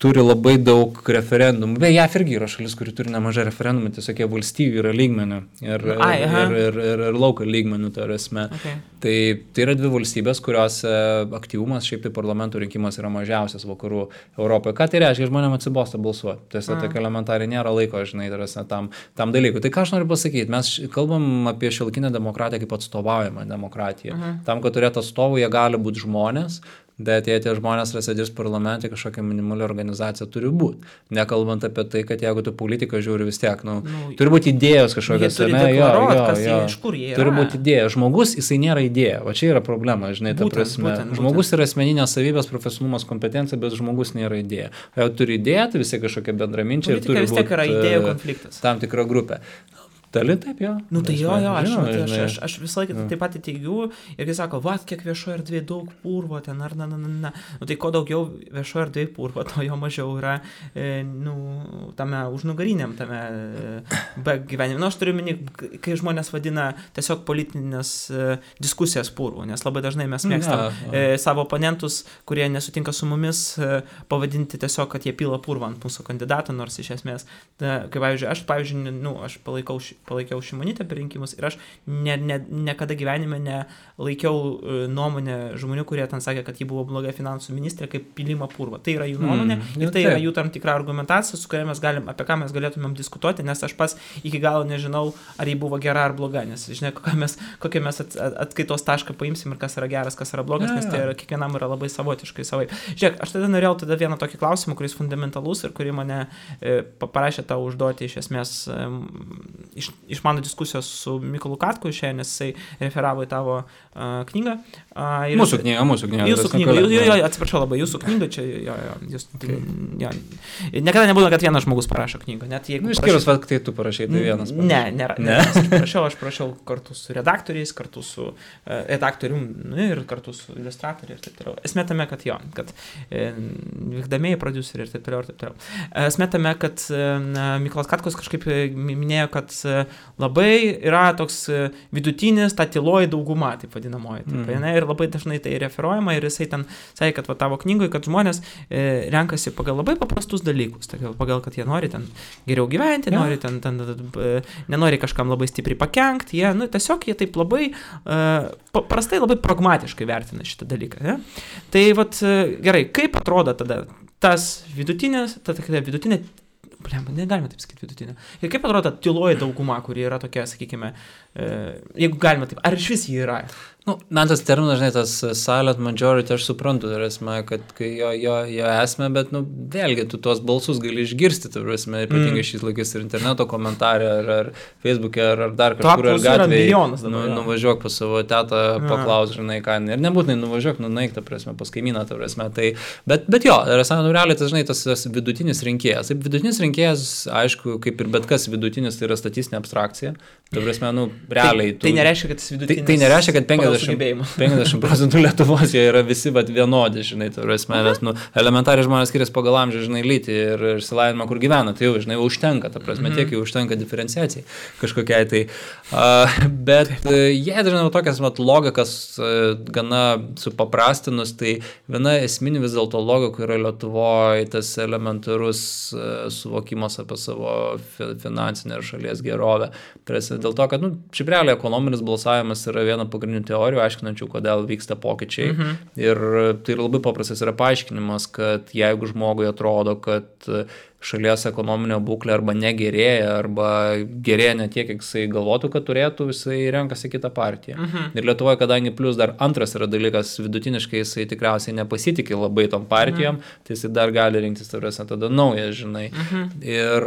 [SPEAKER 2] turi labai daug referendumų. Beje, JAV irgi yra šalis, kuri turi nemažai referendumų, tiesiog jie valstybių yra lygmenių ir local lygmenių, tai esmė. Okay. Tai yra dvi valstybės, kurios aktyvumas šiaip tai parlamento rinkimas yra mažiausias vakarų Europoje. Ką tai reiškia? Žmonėms atsibosta balsuoti. Tiesiog tokia elementariai nėra laiko, žinai, tam dalykui. Tai ką aš noriu pasakyti? Mes kalbam apie šiuolaikinę demokratiją kaip atstovaujamą demokratiją. Tam, kad turėtų atstovų, jie gali būti žmonės, bet jei tie žmonės sėdės parlamente, kažkokia minimali organizacija turi būti. Nekalbant apie tai, kad jeigu tu politiką žiūri vis tiek, turi būti idėjos kažkokios. Turi būti idėja. Žmogus, jisai nėra idėja. Va čia yra problema, žinai, ta prasme. Žmogus yra asmeninės savybės, profesionalumas, kompetencija, bet žmogus nėra idėja. Jeigu turi idėją, tai visi kažkokia bendraminčiai ir turi būti tam tikra grupė. Tali taip, jo.
[SPEAKER 1] Tai jo, aš visą laiką taip pat teigiu ir kai sako, kiek viešoje erdvėje daug purvo ten, tai ko daugiau viešoje erdvėje purvo, to jo mažiau yra, tame užnugariniam, tame gyvenime. Aš turiu minį, kai žmonės vadina tiesiog politinės diskusijas purvo, nes labai dažnai mes mėgstam savo oponentus, kurie nesutinka su mumis, pavadinti tiesiog, kad jie pila purvą ant mūsų kandidato, nors iš esmės, kai aš palaikiau Šimonytę per rinkimus ir aš niekada gyvenime nelaikiau nuomonę žmonių, kurie ten sakė, kad ji buvo bloga finansų ministrė, kaip pilimą purvą. Tai yra jų nuomonė ir tai yra jų tam tikra argumentacija, su kuria apie ką mes galėtumėm diskutuoti, nes aš pas iki galo nežinau, ar ji buvo gera ar bloga, nes žinai, kokią mes atskaitos tašką paimsim ir kas yra geras, kas yra blogas, nes tai yra, kiekvienam yra labai savotiškai savai. Žiūrėk, aš tada norėjau vieną tokį klausimą, kuris fundamentalus ir kurį mane parašė tau užduoti iš esmės iš mano diskusijos su Mykolu Katku šiandien, nes jisai referavo į tavo knygą.
[SPEAKER 2] Mūsų knyga.
[SPEAKER 1] Jūsų knyga, atsiprašau labai, jūsų knyga čia, Niekada nebūna, kad vienas žmogus parašo knygą.
[SPEAKER 2] Išskyrus, kai tu parašai, tai vienas.
[SPEAKER 1] Ne. Aš parašiau kartu su redaktoriais, kartu su redaktorium ir kartu su iliustratoriai ir taip toliau. Esmė tame, kad vykdamieji prodiuseriai ir taip toliau. Esmė tame, kad Mykolas Katkus kažkaip minėjo, kad labai yra toks vidutinis, ta tyloji dauguma, taip vadinamoji. Ir labai dažnai tai referuojama ir jisai ten sakė, kad tavo knygoje, kad žmonės renkasi pagal labai paprastus dalykus, pagal, kad jie nori ten geriau gyventi, nori ten nenori kažkam labai stipriai pakenkti, tiesiog jie taip labai paprastai, labai pragmatiškai vertina šitą dalyką. Ne? Tai gerai, kaip atrodo tada tas vidutinė, negalime taip sakyti vidutinė. Ir kaip atrodo tyloji dauguma, kuri yra tokia, sakykime, jeigu galima taip, ar iš vis jį yra?
[SPEAKER 2] Man tas terminas, žinai, tas silent majority, aš suprantu, tai esmė, kad jo esmė, bet, vėlgi, tu tuos balsus gali išgirsti, tai esmė, ypatingai šis laikais ir interneto komentarė, ar Facebook'e, ar dar kažkur, ar gatvėje, nuvažiuok pas savo tetą, paklaus, žinai, ką, ir nebūtinai nuvažiuok, nueik, ta prasme, pas kaimyną, ta prasme, tai, bet jo, realiai, tai, žinai, tas vidutinis rinkėjas. Taip, vidutinis rinkėjas, aišku, kaip ir bet kas vidutinis, tai yra statistinė abstrakcija, ta prasme, realiai.
[SPEAKER 1] Tai nereiškia, kad tas vidutinis.
[SPEAKER 2] Tai nereiškia, kad 50% Lietuvos jie yra visi vienodi, žinai, tai nes, elementariai žmonės skiriasi pagal amžių, žinai, lytį ir išsilavinimą, kur gyvena, tai jau, žinai, užtenka, ta prasme, tiek jau užtenka diferenciacijai kažkokiai, tai, bet jie dažnai tokias logikas gana supaprastinus, tai viena esminė vis dėlto logika yra Lietuvoje tas elementarus suvokimas apie savo finansinę ir šalies gerovę. Dėl to, kad, šiaip realiai ekonominis balsavimas yra viena pagrindinių teorijų, aiškinančių, kodėl vyksta pokyčiai. Ir tai labai paprastas yra paaiškinimas, kad jeigu žmogui atrodo, kad šalies ekonominio būklė arba negerėja, arba gerėja ne tiek, kiek jisai galvotų, kad turėtų, jisai renkasi kitą partiją. Ir Lietuvoje, kadangi plus dar antras yra dalykas, vidutiniškai jisai tikriausiai nepasitikė labai tom partijom, tai jisai dar gali rinktis tada naują, žinai. Ir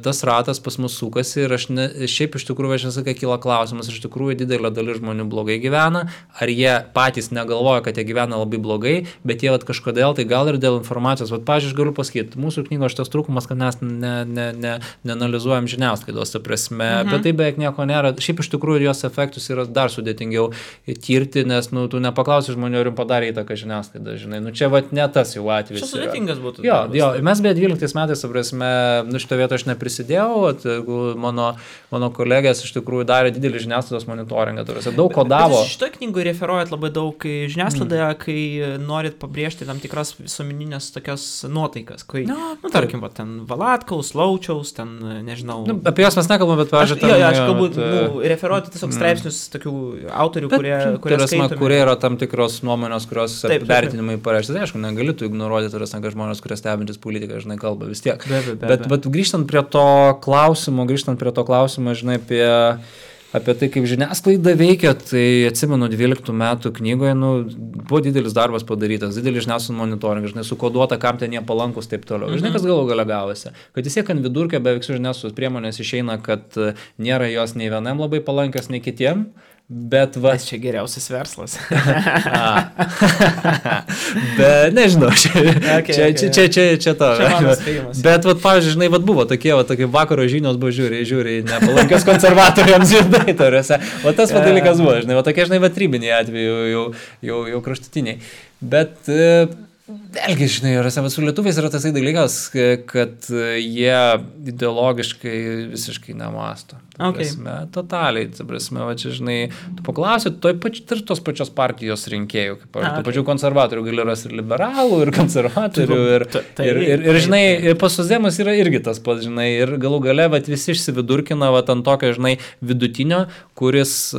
[SPEAKER 2] tas ratas pas mus sukasi ir šiaip iš tikrųjų, aš nesakai, kyla klausimas, iš tikrųjų didelė dalis žmonių blogai gyvena, ar jie patys negalvoja, kad jie gyvena labai blogai, bet jie kažkodėl, tai gal ir dėl informacijos. Pavyzdžiui, aš galiu pasakyti, mūsų knygos šitas trūkumas trūkumas, kad mes neanalizuojam žiniasklaidos, ta prasme, bet tai beveik nieko nėra. Šiaip iš tikrųjų jos efektus yra dar sudėtingiau tirti, nes tu nepaklausi žmonių, ar jums padarė įtaką žiniasklaida, žinai. Čia ne tas jau atvejis.
[SPEAKER 1] Čia sudėtingas būtų.
[SPEAKER 2] Jo, mes beje 12 metais, ta prasme, šitą vietą aš neprisidėjau, mano kolegės iš tikrųjų darė didelį žiniasklaidos monitoringą, daug kodavo.
[SPEAKER 1] Šitoje knygoje referuojat labai daug žiniasklaidoje, kai norit pabrėžti tam tikras visuomeninės tokios nuotaikas, kai, tarkim, ten Valatkaus, Laučiaus, ten, nežinau.
[SPEAKER 2] Apie jas mes nekalbame, bet pažiūrėjau.
[SPEAKER 1] Aš galbūt referuoti tiesiog straipsnius tokių autorių, kurie skaitomi.
[SPEAKER 2] Kurie yra tam tikros nuomonės, kurios vertinimai pareišti. Tai aišku, negali tu ignoruoti, kad žmonės, kurie stebintis politiką, žinai, kalba vis tiek. Bet grįžtant prie to klausimo, žinai, apie tai, kaip žiniasklaida veikia, tai atsimenu 12 metų knygoje, buvo didelis darbas padarytas, didelis žiniasklaidos monitoringas, žinai, sukoduota, kam ten jie palankus, taip toliau. Žinai, kas galų gale gavosi. Kad vis tiek ant vidurkio beveik su žiniasklaidos priemonės išeina, kad nėra jos nei vienam labai palankios, nei kitiem. Bet
[SPEAKER 1] čia geriausias verslas.
[SPEAKER 2] Bet nežinau, čia to. Bet, pavyzdžiui, žinai, buvo tokie vakaro žinios buvo žiūri, nepalankios konservatoriams žinai, tariuose. O tas dalykas buvo, žinai, tokie, žinai, trybiniai atveju jau kraštutiniai. Bet vėlgi, žinai, su lietuviais yra tasai dalykas, kad jie ideologiškai visiškai nemasto. Totaliai, čia, žinai, tu paklausi, tos pačios partijos rinkėjų, kaip tų pačių konservatorių gali rasti ir liberalų, ir konservatorių, ir žinai, pas socdemus yra irgi tas pats, žinai, ir galų gale visi išsividurkina ant tokio, žinai, vidutinio, kuris,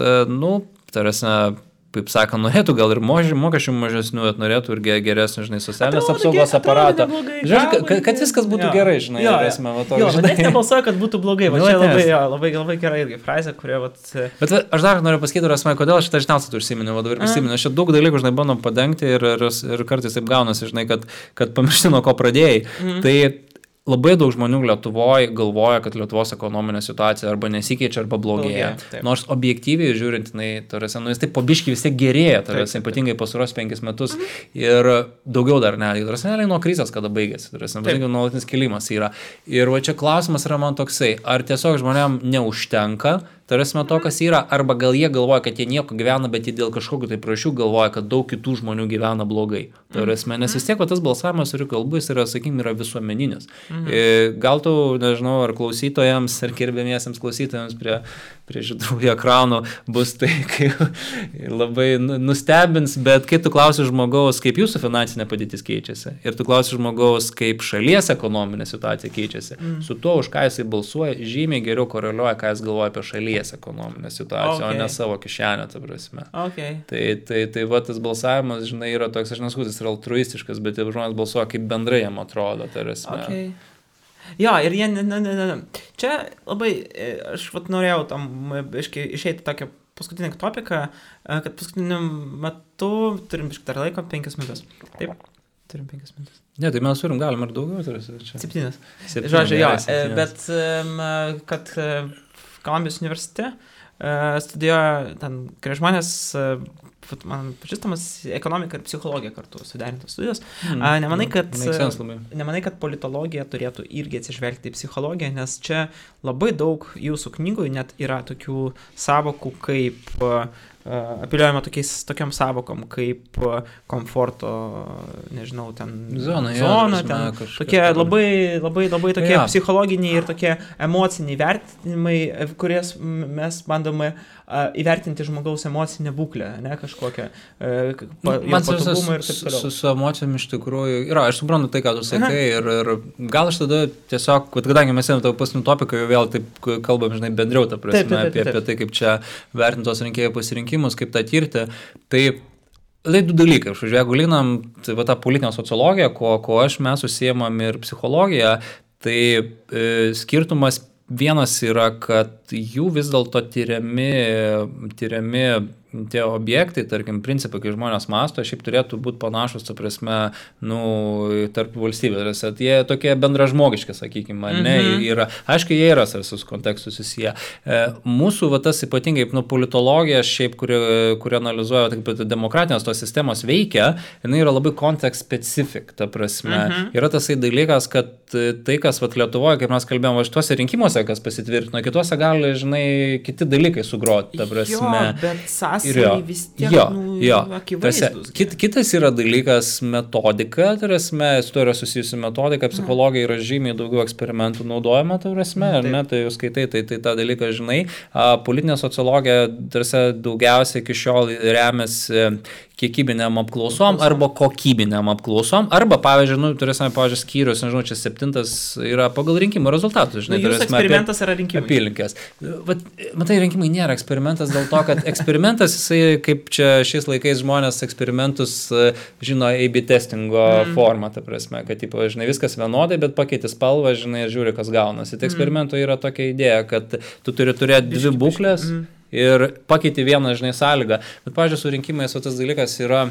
[SPEAKER 2] tarasi, kaip sakant, norėtų gal ir mokesčių mažesnių, bet norėtų ir geresnį, žinai, socialinės apsaugos aparatą. Žiūrėk, kad viskas būtų gerai, žinai.
[SPEAKER 1] Bet net nebalsuoja, kad būtų blogai. Čia labai gerai irgi frazė, kurie...
[SPEAKER 2] Bet aš dar noriu pasakyti, kodėl šitą žiniasklaidą tu užsiminiau, ir prisiminiau. Aš čia daug dalykų, žinai, bandom padengti ir kartais taip gaunasi, žinai, kad pamiršti, nuo ko pradėjai. Tai labai daug žmonių Lietuvoje galvoja, kad Lietuvos ekonominė situacija arba nesikeičia, arba blogėja. Nors objektyviai žiūrint, jis taip po biškį vis tiek gerėja, ypatingai pastaruosius 5 metus ir daugiau dar netgi. Nuo krizės, kada baigėsi, nuolatinis kilimas yra. Ir čia klausimas yra man toksai, ar tiesiog žmonėm neužtenka, tarasime to, kas yra, arba gal jie galvoja, kad jie nieko gyvena, bet jie dėl kažkokių tai priežasčių galvoja, kad daug kitų žmonių gyvena blogai. Tarasime, nes vis tiek tas balsavimas, ir kalbu, jis yra, sakykime, yra visuomeninis. Gal tu, nežinau, ar klausytojams, ar gerbėmiesiems klausytojams prie žydrųjų ekranų bus tai, kai labai nustebins, bet kai tu klausi žmogaus, kaip jūsų finansinė padėtis keičiasi, ir tu klausi žmogaus, kaip šalies ekonominė situacija keičiasi, su tuo, už ką jisai balsuoja, žymiai geriau koreliuoja, ką jis galvoja apie šalies ekonominę situaciją, o ne savo kišenę, ta prasme. Tai va, tas balsavimas, žinai, yra toks, aš nesakau, jis yra altruistiškas, bet žmonės balsuoja, kaip bendrai jam atrodo, ta prasme.
[SPEAKER 1] Jo, ir jie, čia labai, aš norėjau tam išeiti tokią paskutinį topiką, kad paskutiniu metu turim dar laiko 5 minutės. Taip, turim 5 minutės.
[SPEAKER 2] Ne, tai mes galim ir daugiau.
[SPEAKER 1] 7. Žodžiu, jo, bet kad Kolumbijos universitete studijuoja ten keli žmonės, man pažįstamas, ekonomika ir psichologija kartu suderintos studijos. Nemanai, kad politologija turėtų irgi atsižvelgti į psichologiją, nes čia labai daug jūsų knygų net yra tokių savokų kaip apeliuojama tokiam savokom kaip komforto, nežinau, ten zona ten tokie labai tokie psichologiniai ir tokie emociniai vertinimai, kurias mes bandome įvertinti žmogaus emocinę būklę, ne kažkokią patogumą ir taip toliau.
[SPEAKER 2] Su emocijom iš tikrųjų yra, aš suprantu tai, ką tu sakai, ir gal aš tada tiesiog, kadangi mes ėmėm tavo paskutinį topiką, jau vėl taip kalbam, žinai, bendriau, ta prasme, apie tai, kaip čia vertintos rinkėjų pasirinkimus, kaip tą tirti, tai du dalykai. Jeigu lyginam tą politinę sociologiją, ko mes užsiimam ir psichologiją, tai skirtumas vienas yra, kad jų vis dėlto tyriami tie objektai, tarkim, principai, kai žmonės masto, šiaip turėtų būti panašus, ta prasme, tarp valstybės. Jie tokie bendražmogiški, sakykime, ne, yra, aišku, jie yra visus kontekstus susiję. Mūsų, tas ypatingai, politologija, šiaip, kuri analizuoja, taip, demokratinės tos sistemos veikia, jinai yra labai kontekst specific, ta prasme. Yra tasai dalykas, kad tai, kas Lietuvoje, kaip mes kalbėjome, šituose rinkimuose, kas pasitvirtino, kituose gali, žinai, kiti dalykai sugroti, ta prasme.
[SPEAKER 1] Jo, bet vis tiek akivaizdus.
[SPEAKER 2] Kitas yra dalykas metodika, tarasme, su to yra susijusi metodika, psichologija yra žymiai daugiau eksperimentų naudojama, tarasme, ar ne, tai jūs skaitai, tai tą dalyką žinai. Politinė sociologija, tarsi, daugiausiai iki šiol remiasi kiekybiniam apklausom arba kokybiniam apklausom, arba, pavyzdžiui, turėsime, skyrius, nežinau, čia 7 yra pagal rinkimų rezultatus, žinai,
[SPEAKER 1] jūsų eksperimentas yra rinkimai.
[SPEAKER 2] Apylinkės. Matai, rinkimai nėra eksperimentas dėl to, kad eksperimentas, jisai, kaip čia šiais laikais žmonės eksperimentus žino A/B testingo formą, ta prasme, kad, žinai, viskas vienodai, bet pakeiti spalvą, žinai, ir žiūri, kas gaunasi. Tai eksperimento yra tokia idėja, kad tu turi turėti dvi būklės ir pakeiti vieną, žinai, sąlygą. Bet, pavyzdžiui, su rinkimais tas dalykas yra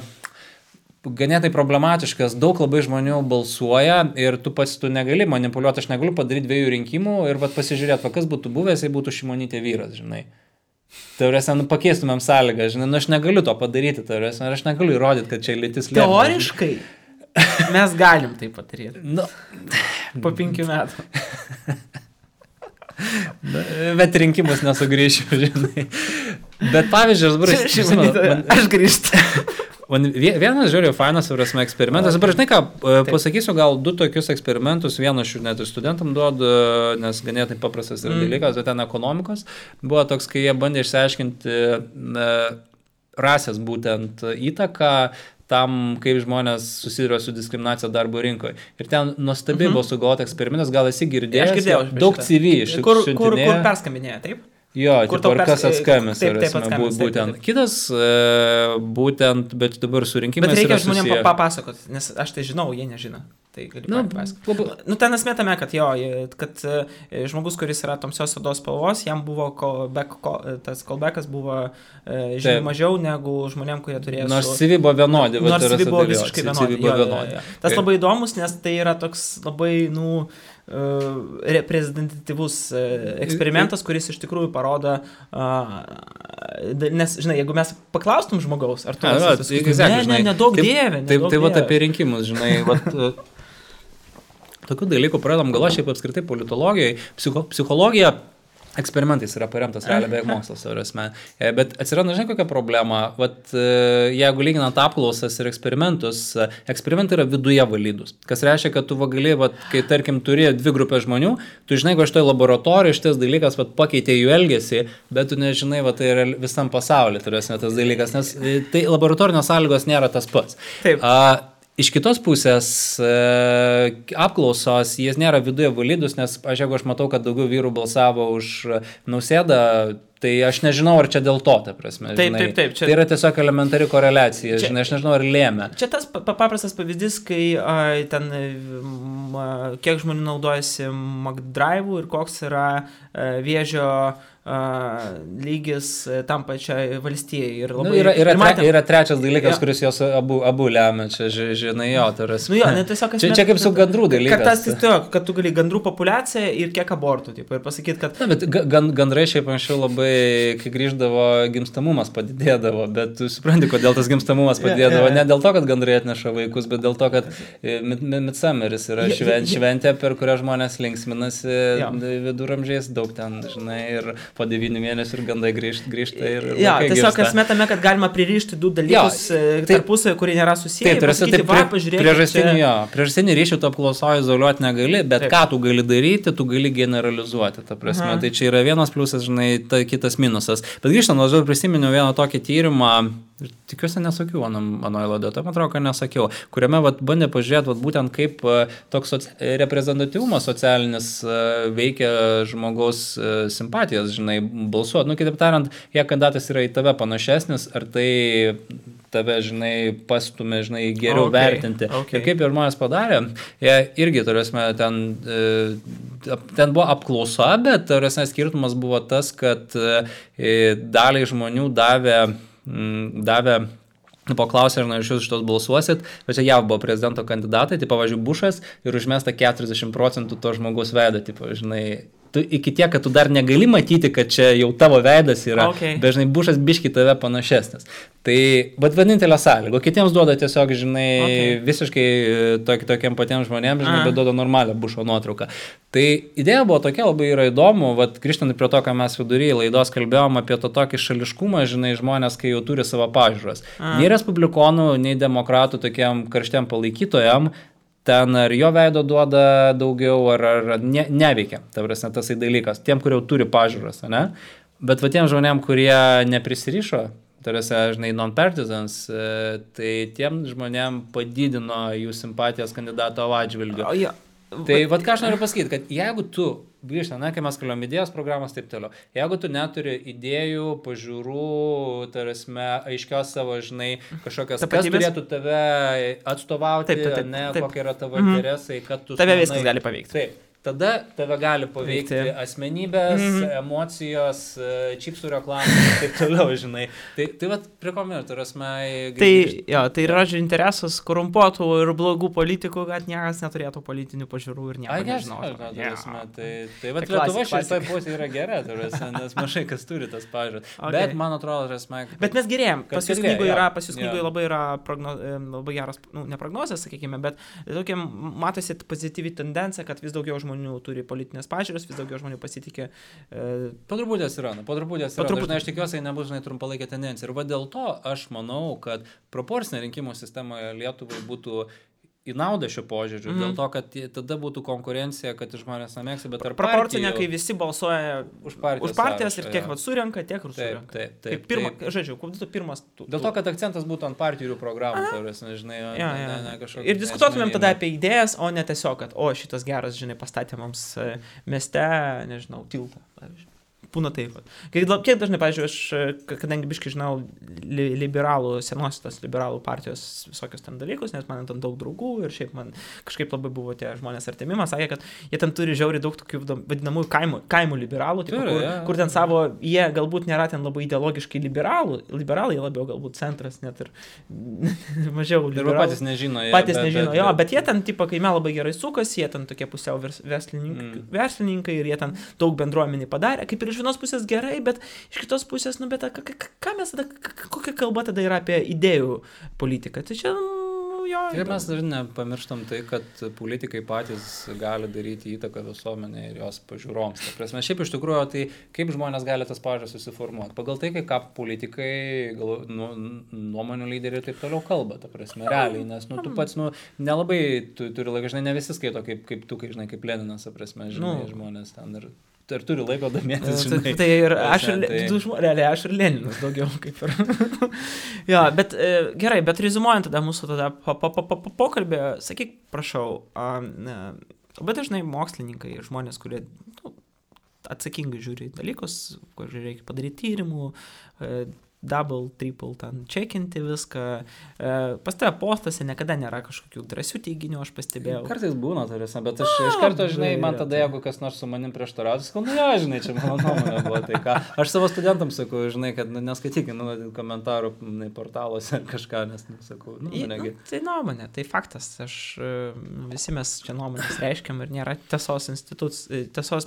[SPEAKER 2] ganėtai problematiškas, daug labai žmonių balsuoja ir tu negali manipuliuoti, aš negaliu padaryti 2 rinkimų ir pasižiūrėti, kas būtų buvęs, jei būtų Šimonytė vyras, žinai. Taurėse, pakeistumėm sąlygą, žinai, aš negaliu to padaryti, taurėse, aš negaliu įrodyti, kad čia lytis lėmė.
[SPEAKER 1] Teoriškai mes galim tai padaryti. Po 5 metų.
[SPEAKER 2] Bet rinkimus nesugrįšiu, žinai. Bet pavyzdžiui,
[SPEAKER 1] aš grįžtu.
[SPEAKER 2] Vienas žiūrėjau fainas eksperimentas. Dabar žinai ką, pasakysiu gal 2 tokius eksperimentus, vieną aš net ir studentam duodu, nes ganėtai paprastas yra dalykas, bet ten ekonomikos. Buvo toks, kai jie bandė išsiaiškinti rasės būtent įtaką tam, kaip žmonės susiduria su diskriminacija darbo rinkoje. Ir ten nuostabiai buvo sugalvota eksperimentas, gal esi girdėjęs,
[SPEAKER 1] aš girdėjau,
[SPEAKER 2] daug CV iš tikrųjų.
[SPEAKER 1] Kur perskambinėja, taip?
[SPEAKER 2] Jo, kas atskambins, būtent. Kitas, būtent, bet dabar su rinkimais
[SPEAKER 1] bet reikia
[SPEAKER 2] yra
[SPEAKER 1] žmonėm papasakot, nes aš tai žinau, jie nežino. Tai gali papasakot. Ten esmė tame, kad kad žmogus, kuris yra tamsios odos spalvos, jam buvo tas callbackas buvo žymiai mažiau negu žmonėm, kurie turėjo
[SPEAKER 2] nors CV buvo vienodi.
[SPEAKER 1] Nors CV buvo visiškai vienodi. Tas labai įdomus, nes tai yra toks labai, reprezentatyvus eksperimentas, kuris iš tikrųjų parodo, nes, žinai, jeigu mes paklaustum žmogaus, ar tu nedaug dievė.
[SPEAKER 2] Tai apie rinkimus, žinai, tokių dalykų pradedam galvo, šiaip apskritai politologijai, psichologija eksperimentais yra paremtas realiai beveik mokslas, bet atsiranda, žinai, kokia problema, jeigu lyginant apklausas ir eksperimentus, eksperimentai yra viduje validus, kas reiškia, kad tu gali, kai tarkim turi 2 grupės žmonių, tu žinai, kad šitoje laboratorijoje šitas dalykas pakeitė jų elgesį, bet tu nežinai, tai yra visam pasaulyje turėsime tas dalykas, nes tai laboratorinės sąlygos nėra tas pats.
[SPEAKER 1] Taip.
[SPEAKER 2] Iš kitos pusės apklausos, jie nėra viduje validus, nes jeigu aš matau, kad daugiau vyrų balsavo už Nausėdą, tai aš nežinau, ar čia dėl to, ta prasme.
[SPEAKER 1] Taip.
[SPEAKER 2] Čia... Tai yra tiesiog elementari koreliacija, žinai, aš nežinau, ar lėmė.
[SPEAKER 1] Čia tas paprastas pavyzdys, kai ten kiek žmonių naudojasi McDrive'u ir koks yra vėžio lygis tam pačiai valstijai. Ir labai,
[SPEAKER 2] yra trečias dalykas, kuris jos abu lemia, čia žinai, tai yra... Čia kaip su gandrų dalykas.
[SPEAKER 1] Kad tu gali gandrų populiaciją ir kiek abortų, ir pasakyti, kad...
[SPEAKER 2] Na, bet gandrai šiaip anksčiau labai, kai grįždavo, gimstamumas padidėdavo, bet tu supranti, kodėl tas gimstamumas padidėdavo. Ne dėl to, kad gandrai atneša vaikus, bet dėl to, kad Midsummeris yra šventė, per kurią žmonės linksminasi viduramžiais, daug ten, žinai, ir po 9 mėnesių ir gandai grįžta ir
[SPEAKER 1] tiesiog esmė tame, kad galima pririšti 2 dalykus tarpusavy, kurie nėra susiję.
[SPEAKER 2] Priežastinį ryšį tu apklausoji izoliuoti negali, bet ką tu gali daryti, tu gali generalizuoti, ta prasme. Tai čia yra vienas pliusas, žinai, kitas minusas. Bet grįžtant, aš prisiminiau vieną tokį tyrimą, tikiuosi nesakiau anoje laidoje, tai man atrodo, kad nesakiau, kuriame bandė pažiūrėti būtent kaip toks reprezentatyvumas socialinis veikia žmogaus simpatijas, žinai, balsuoti. Kitaip tariant, jei kandidatas yra į tave panašesnis, ar tai tave, žinai, pastumė, žinai, geriau vertinti. Ir kaip ir žmonės padarė, jie irgi, turėsime, ten ten buvo apklausa, bet skirtumas buvo tas, kad daliai žmonių davė paklausė, ar iš jūs šitos balsuosit, bet čia JAV buvo prezidento kandidatai, tai pavyzdžiui, Bušas ir užmesta 40% to žmogaus veido, tipo, žinai, iki tiek, kad tu dar negali matyti, kad čia jau tavo veidas yra, dažnai Bušas biški tave panašesnis. Tai, bet vienintelė sąlyga, kitiems duoda tiesiog, žinai, visiškai tokiem patiems žmonėms, žinai, bet duoda normalią Bušo nuotrauką. Tai idėja buvo tokia, labai yra įdomu, vat grįžtant prie to, ką mes vidury laidos kalbėjom apie to tokį šališkumą, žinai, žmonės, kai jau turi savo pažiūras. Nei respublikonų, nei demokratų tokiam karštiem palaikytojam, ten ar jo veido duoda daugiau, ar neveikia, ta prasme, tasai dalykas, tiem, kurie jau turi pažiūras, ne? Bet va tiem žmonėm, kurie neprisirišo, tarsi, žinai, non-partisans, tai tiem žmonėm padidino jų simpatijos kandidato atžvilgiu. Tai vat ką aš noriu pasakyti, kad jeigu tu, grįžtant, kai mes kalbėjom idėjos programos, taip toliau, jeigu tu neturi idėjų, pažiūrų, tarsi, aiškios savo, žinai, kažkokios, kas turėtų tave atstovauti, kokie yra tavo interesai, kad tu...
[SPEAKER 1] Tave viskas gali paveikti.
[SPEAKER 2] Taip. Tada tave gali paveikti asmenybės, emocijos, čipsų reklamų ir taip toliau, žinai. Tai vat prie ko minėtų,
[SPEAKER 1] tai yra interesas korumpuotų ir blogų politikų, kad niekas neturėtų politinių pažiūrų ir nieko nežinotų.
[SPEAKER 2] Tai vat Lietuva šitoj pusėje yra gera, nes mažai kas turi tas pažiūras. Bet man atrodo,
[SPEAKER 1] bet mes gerėjom. Pas jūs knygoje labai yra labai geras, ne prognozės, sakykime, bet tokia matosi pozityvi tendencija, kad vis daugiau žmonių turi politinės pažiūros, vis daugiau žmonių pasitikė.
[SPEAKER 2] Po truputį atsiranda. Aš tikiuosi, nebus, žinai, trumpalaikė tendencija. Ir va dėl to aš manau, kad proporcinė rinkimų sistemoje Lietuvai būtų į naudą šio požiūriu, dėl to, kad tada būtų konkurencija, kad žmonės nemėgsta, bet tarp partijų...
[SPEAKER 1] Proporcinė, kai visi balsuoja už partijas ir tiek surenka, tiek ir surenka.
[SPEAKER 2] Taip.
[SPEAKER 1] Pirmas...
[SPEAKER 2] Dėl to, kad akcentas būtų ant partijų programų, žinai,
[SPEAKER 1] kažkokia... Ir diskutuotumėm tada apie idėjas, o ne tiesiog, kad, šitas geras, žinai, pastatė mums mieste, nežinau, tiltą, pavyzdžiui. Būna taip. Kiek dažnai, pavyzdžiui, aš, kadangi biškai žinau senosios liberalų partijos visokius ten dalykus, nes man ten daug draugų ir šiaip man kažkaip labai buvo tie žmonės artimi, man sakė, kad jie ten turi žiauriai daug tokių vadinamųjų kaimų liberalų, kur ten savo, jie galbūt nėra ten labai ideologiškai liberalai labiau galbūt centras, net ir mažiau liberalų.
[SPEAKER 2] Patys nežino.
[SPEAKER 1] Bet jie ten, kaime labai gerai sukasi, jie ten tokie pusiau verslininkai ir jie ten daug bendruomenį padarė, kaip ir iš vienos pusės gerai, bet iš kitos pusės, bet ką mes tada, kokia kalba tada yra apie idėjų politiką? Tai čia,
[SPEAKER 2] Ir mes dar nepamirštam tai, kad politikai patys gali daryti įtaką visuomenė ir jos pažiūroms. Ta prasme, šiaip iš tikrųjų, tai kaip žmonės gali tas pažiūras susiformuoti? Pagal tai, ką politikai, nuomonių lyderiai ir taip toliau kalba, ta prasme, realiai, nes tu pats, nelabai turi laiką, žinai, ne visi skaito kaip tu, žinai, kaip Leninas, ta prasme, žinai, žmonės ten ir turi laiko domėtis, žinai.
[SPEAKER 1] Tai ir realiai aš ir Leninas daugiau kaip ir. Bet gerai, bet rezumuojant tada mūsų pokalbį, sakyk, prašau, labai dažnai mokslininkai ir žmonės, kurie atsakingai žiūri dalykus, kur reikia padaryti tyrimų, double, triple, ten čekinti viską. Pas tave postuose niekada nėra kažkokių drąsių teiginių, aš pastebėjau.
[SPEAKER 2] Kartais būna, tarsi, bet aš iš karto, žinai, man tada, jeigu kas nors su manim prieštarautų, sakau, žinai, čia mano nuomonė buvo tai ką. Aš savo studentams sakau, žinai, kad neskaitykit komentarų portaluose ar kažką, nes sakau, negi.
[SPEAKER 1] Tai nuomonė, tai faktas. Visi mes čia nuomonės reiškiam ir nėra tiesos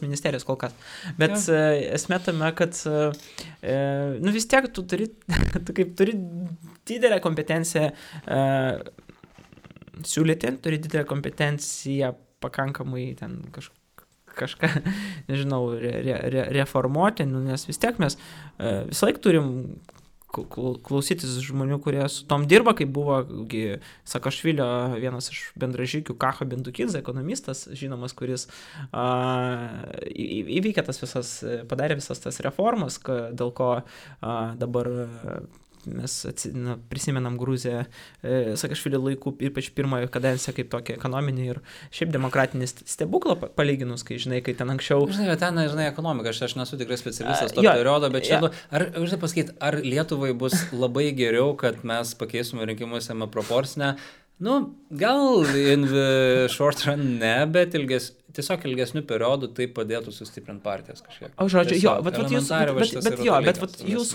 [SPEAKER 1] ministerijos kol kas. Bet esmė tame, kad vis tiek tu turi didelę kompetenciją siūlyti, turi didelę kompetenciją pakankamai ten kažką, nežinau, reformuoti, nes vis tiek mes visą laiką turim klausytis žmonių, kurie su tom dirba, kaip buvo Sakašvilio vienas iš bendražygių Kacho Bendukidze, ekonomistas, žinomas, kuris įveikė padarė visas tas reformas, dėl ko dabar mes prisimenam Gruziją Sakašvilio laikų, ypač pirmojo kadenciją kaip tokia ekonominė ir šiaip demokratinį stebuklą palyginus, kai žinai, kai ten anksčiau...
[SPEAKER 2] Žinai, ten, ekonomika, aš nesu tikrai specialistas to periodo, bet čia, žinai pasakyti, ar Lietuvai bus labai geriau, kad mes pakeisime rinkimuose proporcinę? Gal in the short run ne, bet tiesiog ilgesnių periodų tai padėtų sustiprinti partijas kažkiek.
[SPEAKER 1] O žodžiu, jo,
[SPEAKER 2] Tiesiog,
[SPEAKER 1] bet jūs,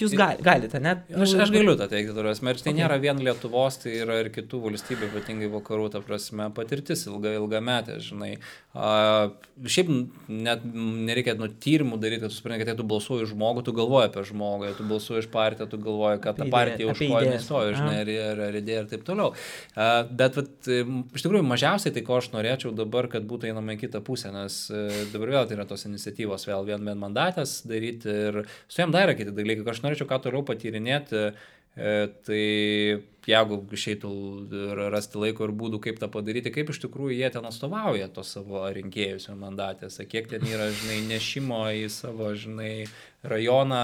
[SPEAKER 1] jūs galite, ne?
[SPEAKER 2] Aš galiu tą teikti, ir tai nėra vien Lietuvos, tai yra ir kitų valstybių, ypatingai vakarų, ta prasme, patirtis ilgametė, žinai. Šiaip net nereikia tyrimų daryti, kad tu supranti, kad tu balsuoji žmogų, tu galvoji apie žmogų, tu balsuoji iš partiją, tu galvoji, kad ta partija už ko nestoja, žinai, ir idėja ir taip toliau. Bet iš tikrųjų mažiausiai tai, ko aš norėčiau dabar, kad būtų einama į kitą pusę, nes dabar vėl tai yra tos iniciatyvos, vėl vienmandatės daryti ir su jam dar yra kiti dalykai, kad aš norėčiau ką toliau patyrinėti, tai jeigu išeitų rasti laiko ir būdų, kaip tą padaryti, kaip iš tikrųjų jie ten atstovauja tos savo rinkėjus mandatėse, kiek ten yra, žinai, nešimo į savo, žinai, rajoną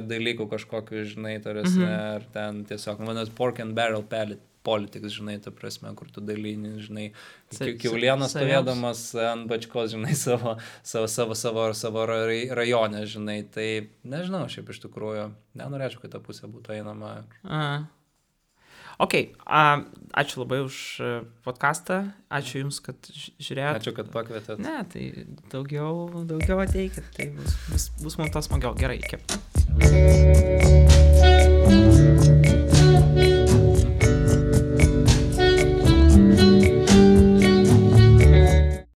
[SPEAKER 2] dalykų kažkokiu, žinai, tarsi, ar ten tiesiog, manas, pork and barrel politics, žinai, ta prasme, kur tu dalini, žinai, kiaulieną stovėdamas ant bačkos, žinai, savo rajone, žinai, tai nežinau, šiaip iš tikrųjų, nenorėčiau, kad ta pusė būtų einama.
[SPEAKER 1] Ok, ačiū labai už podcastą, ačiū Jums, kad žiūrėjote.
[SPEAKER 2] Ačiū, kad pakvietėt.
[SPEAKER 1] Ne, tai daugiau ateikit, tai bus mums tas smagiau. Gerai, iki.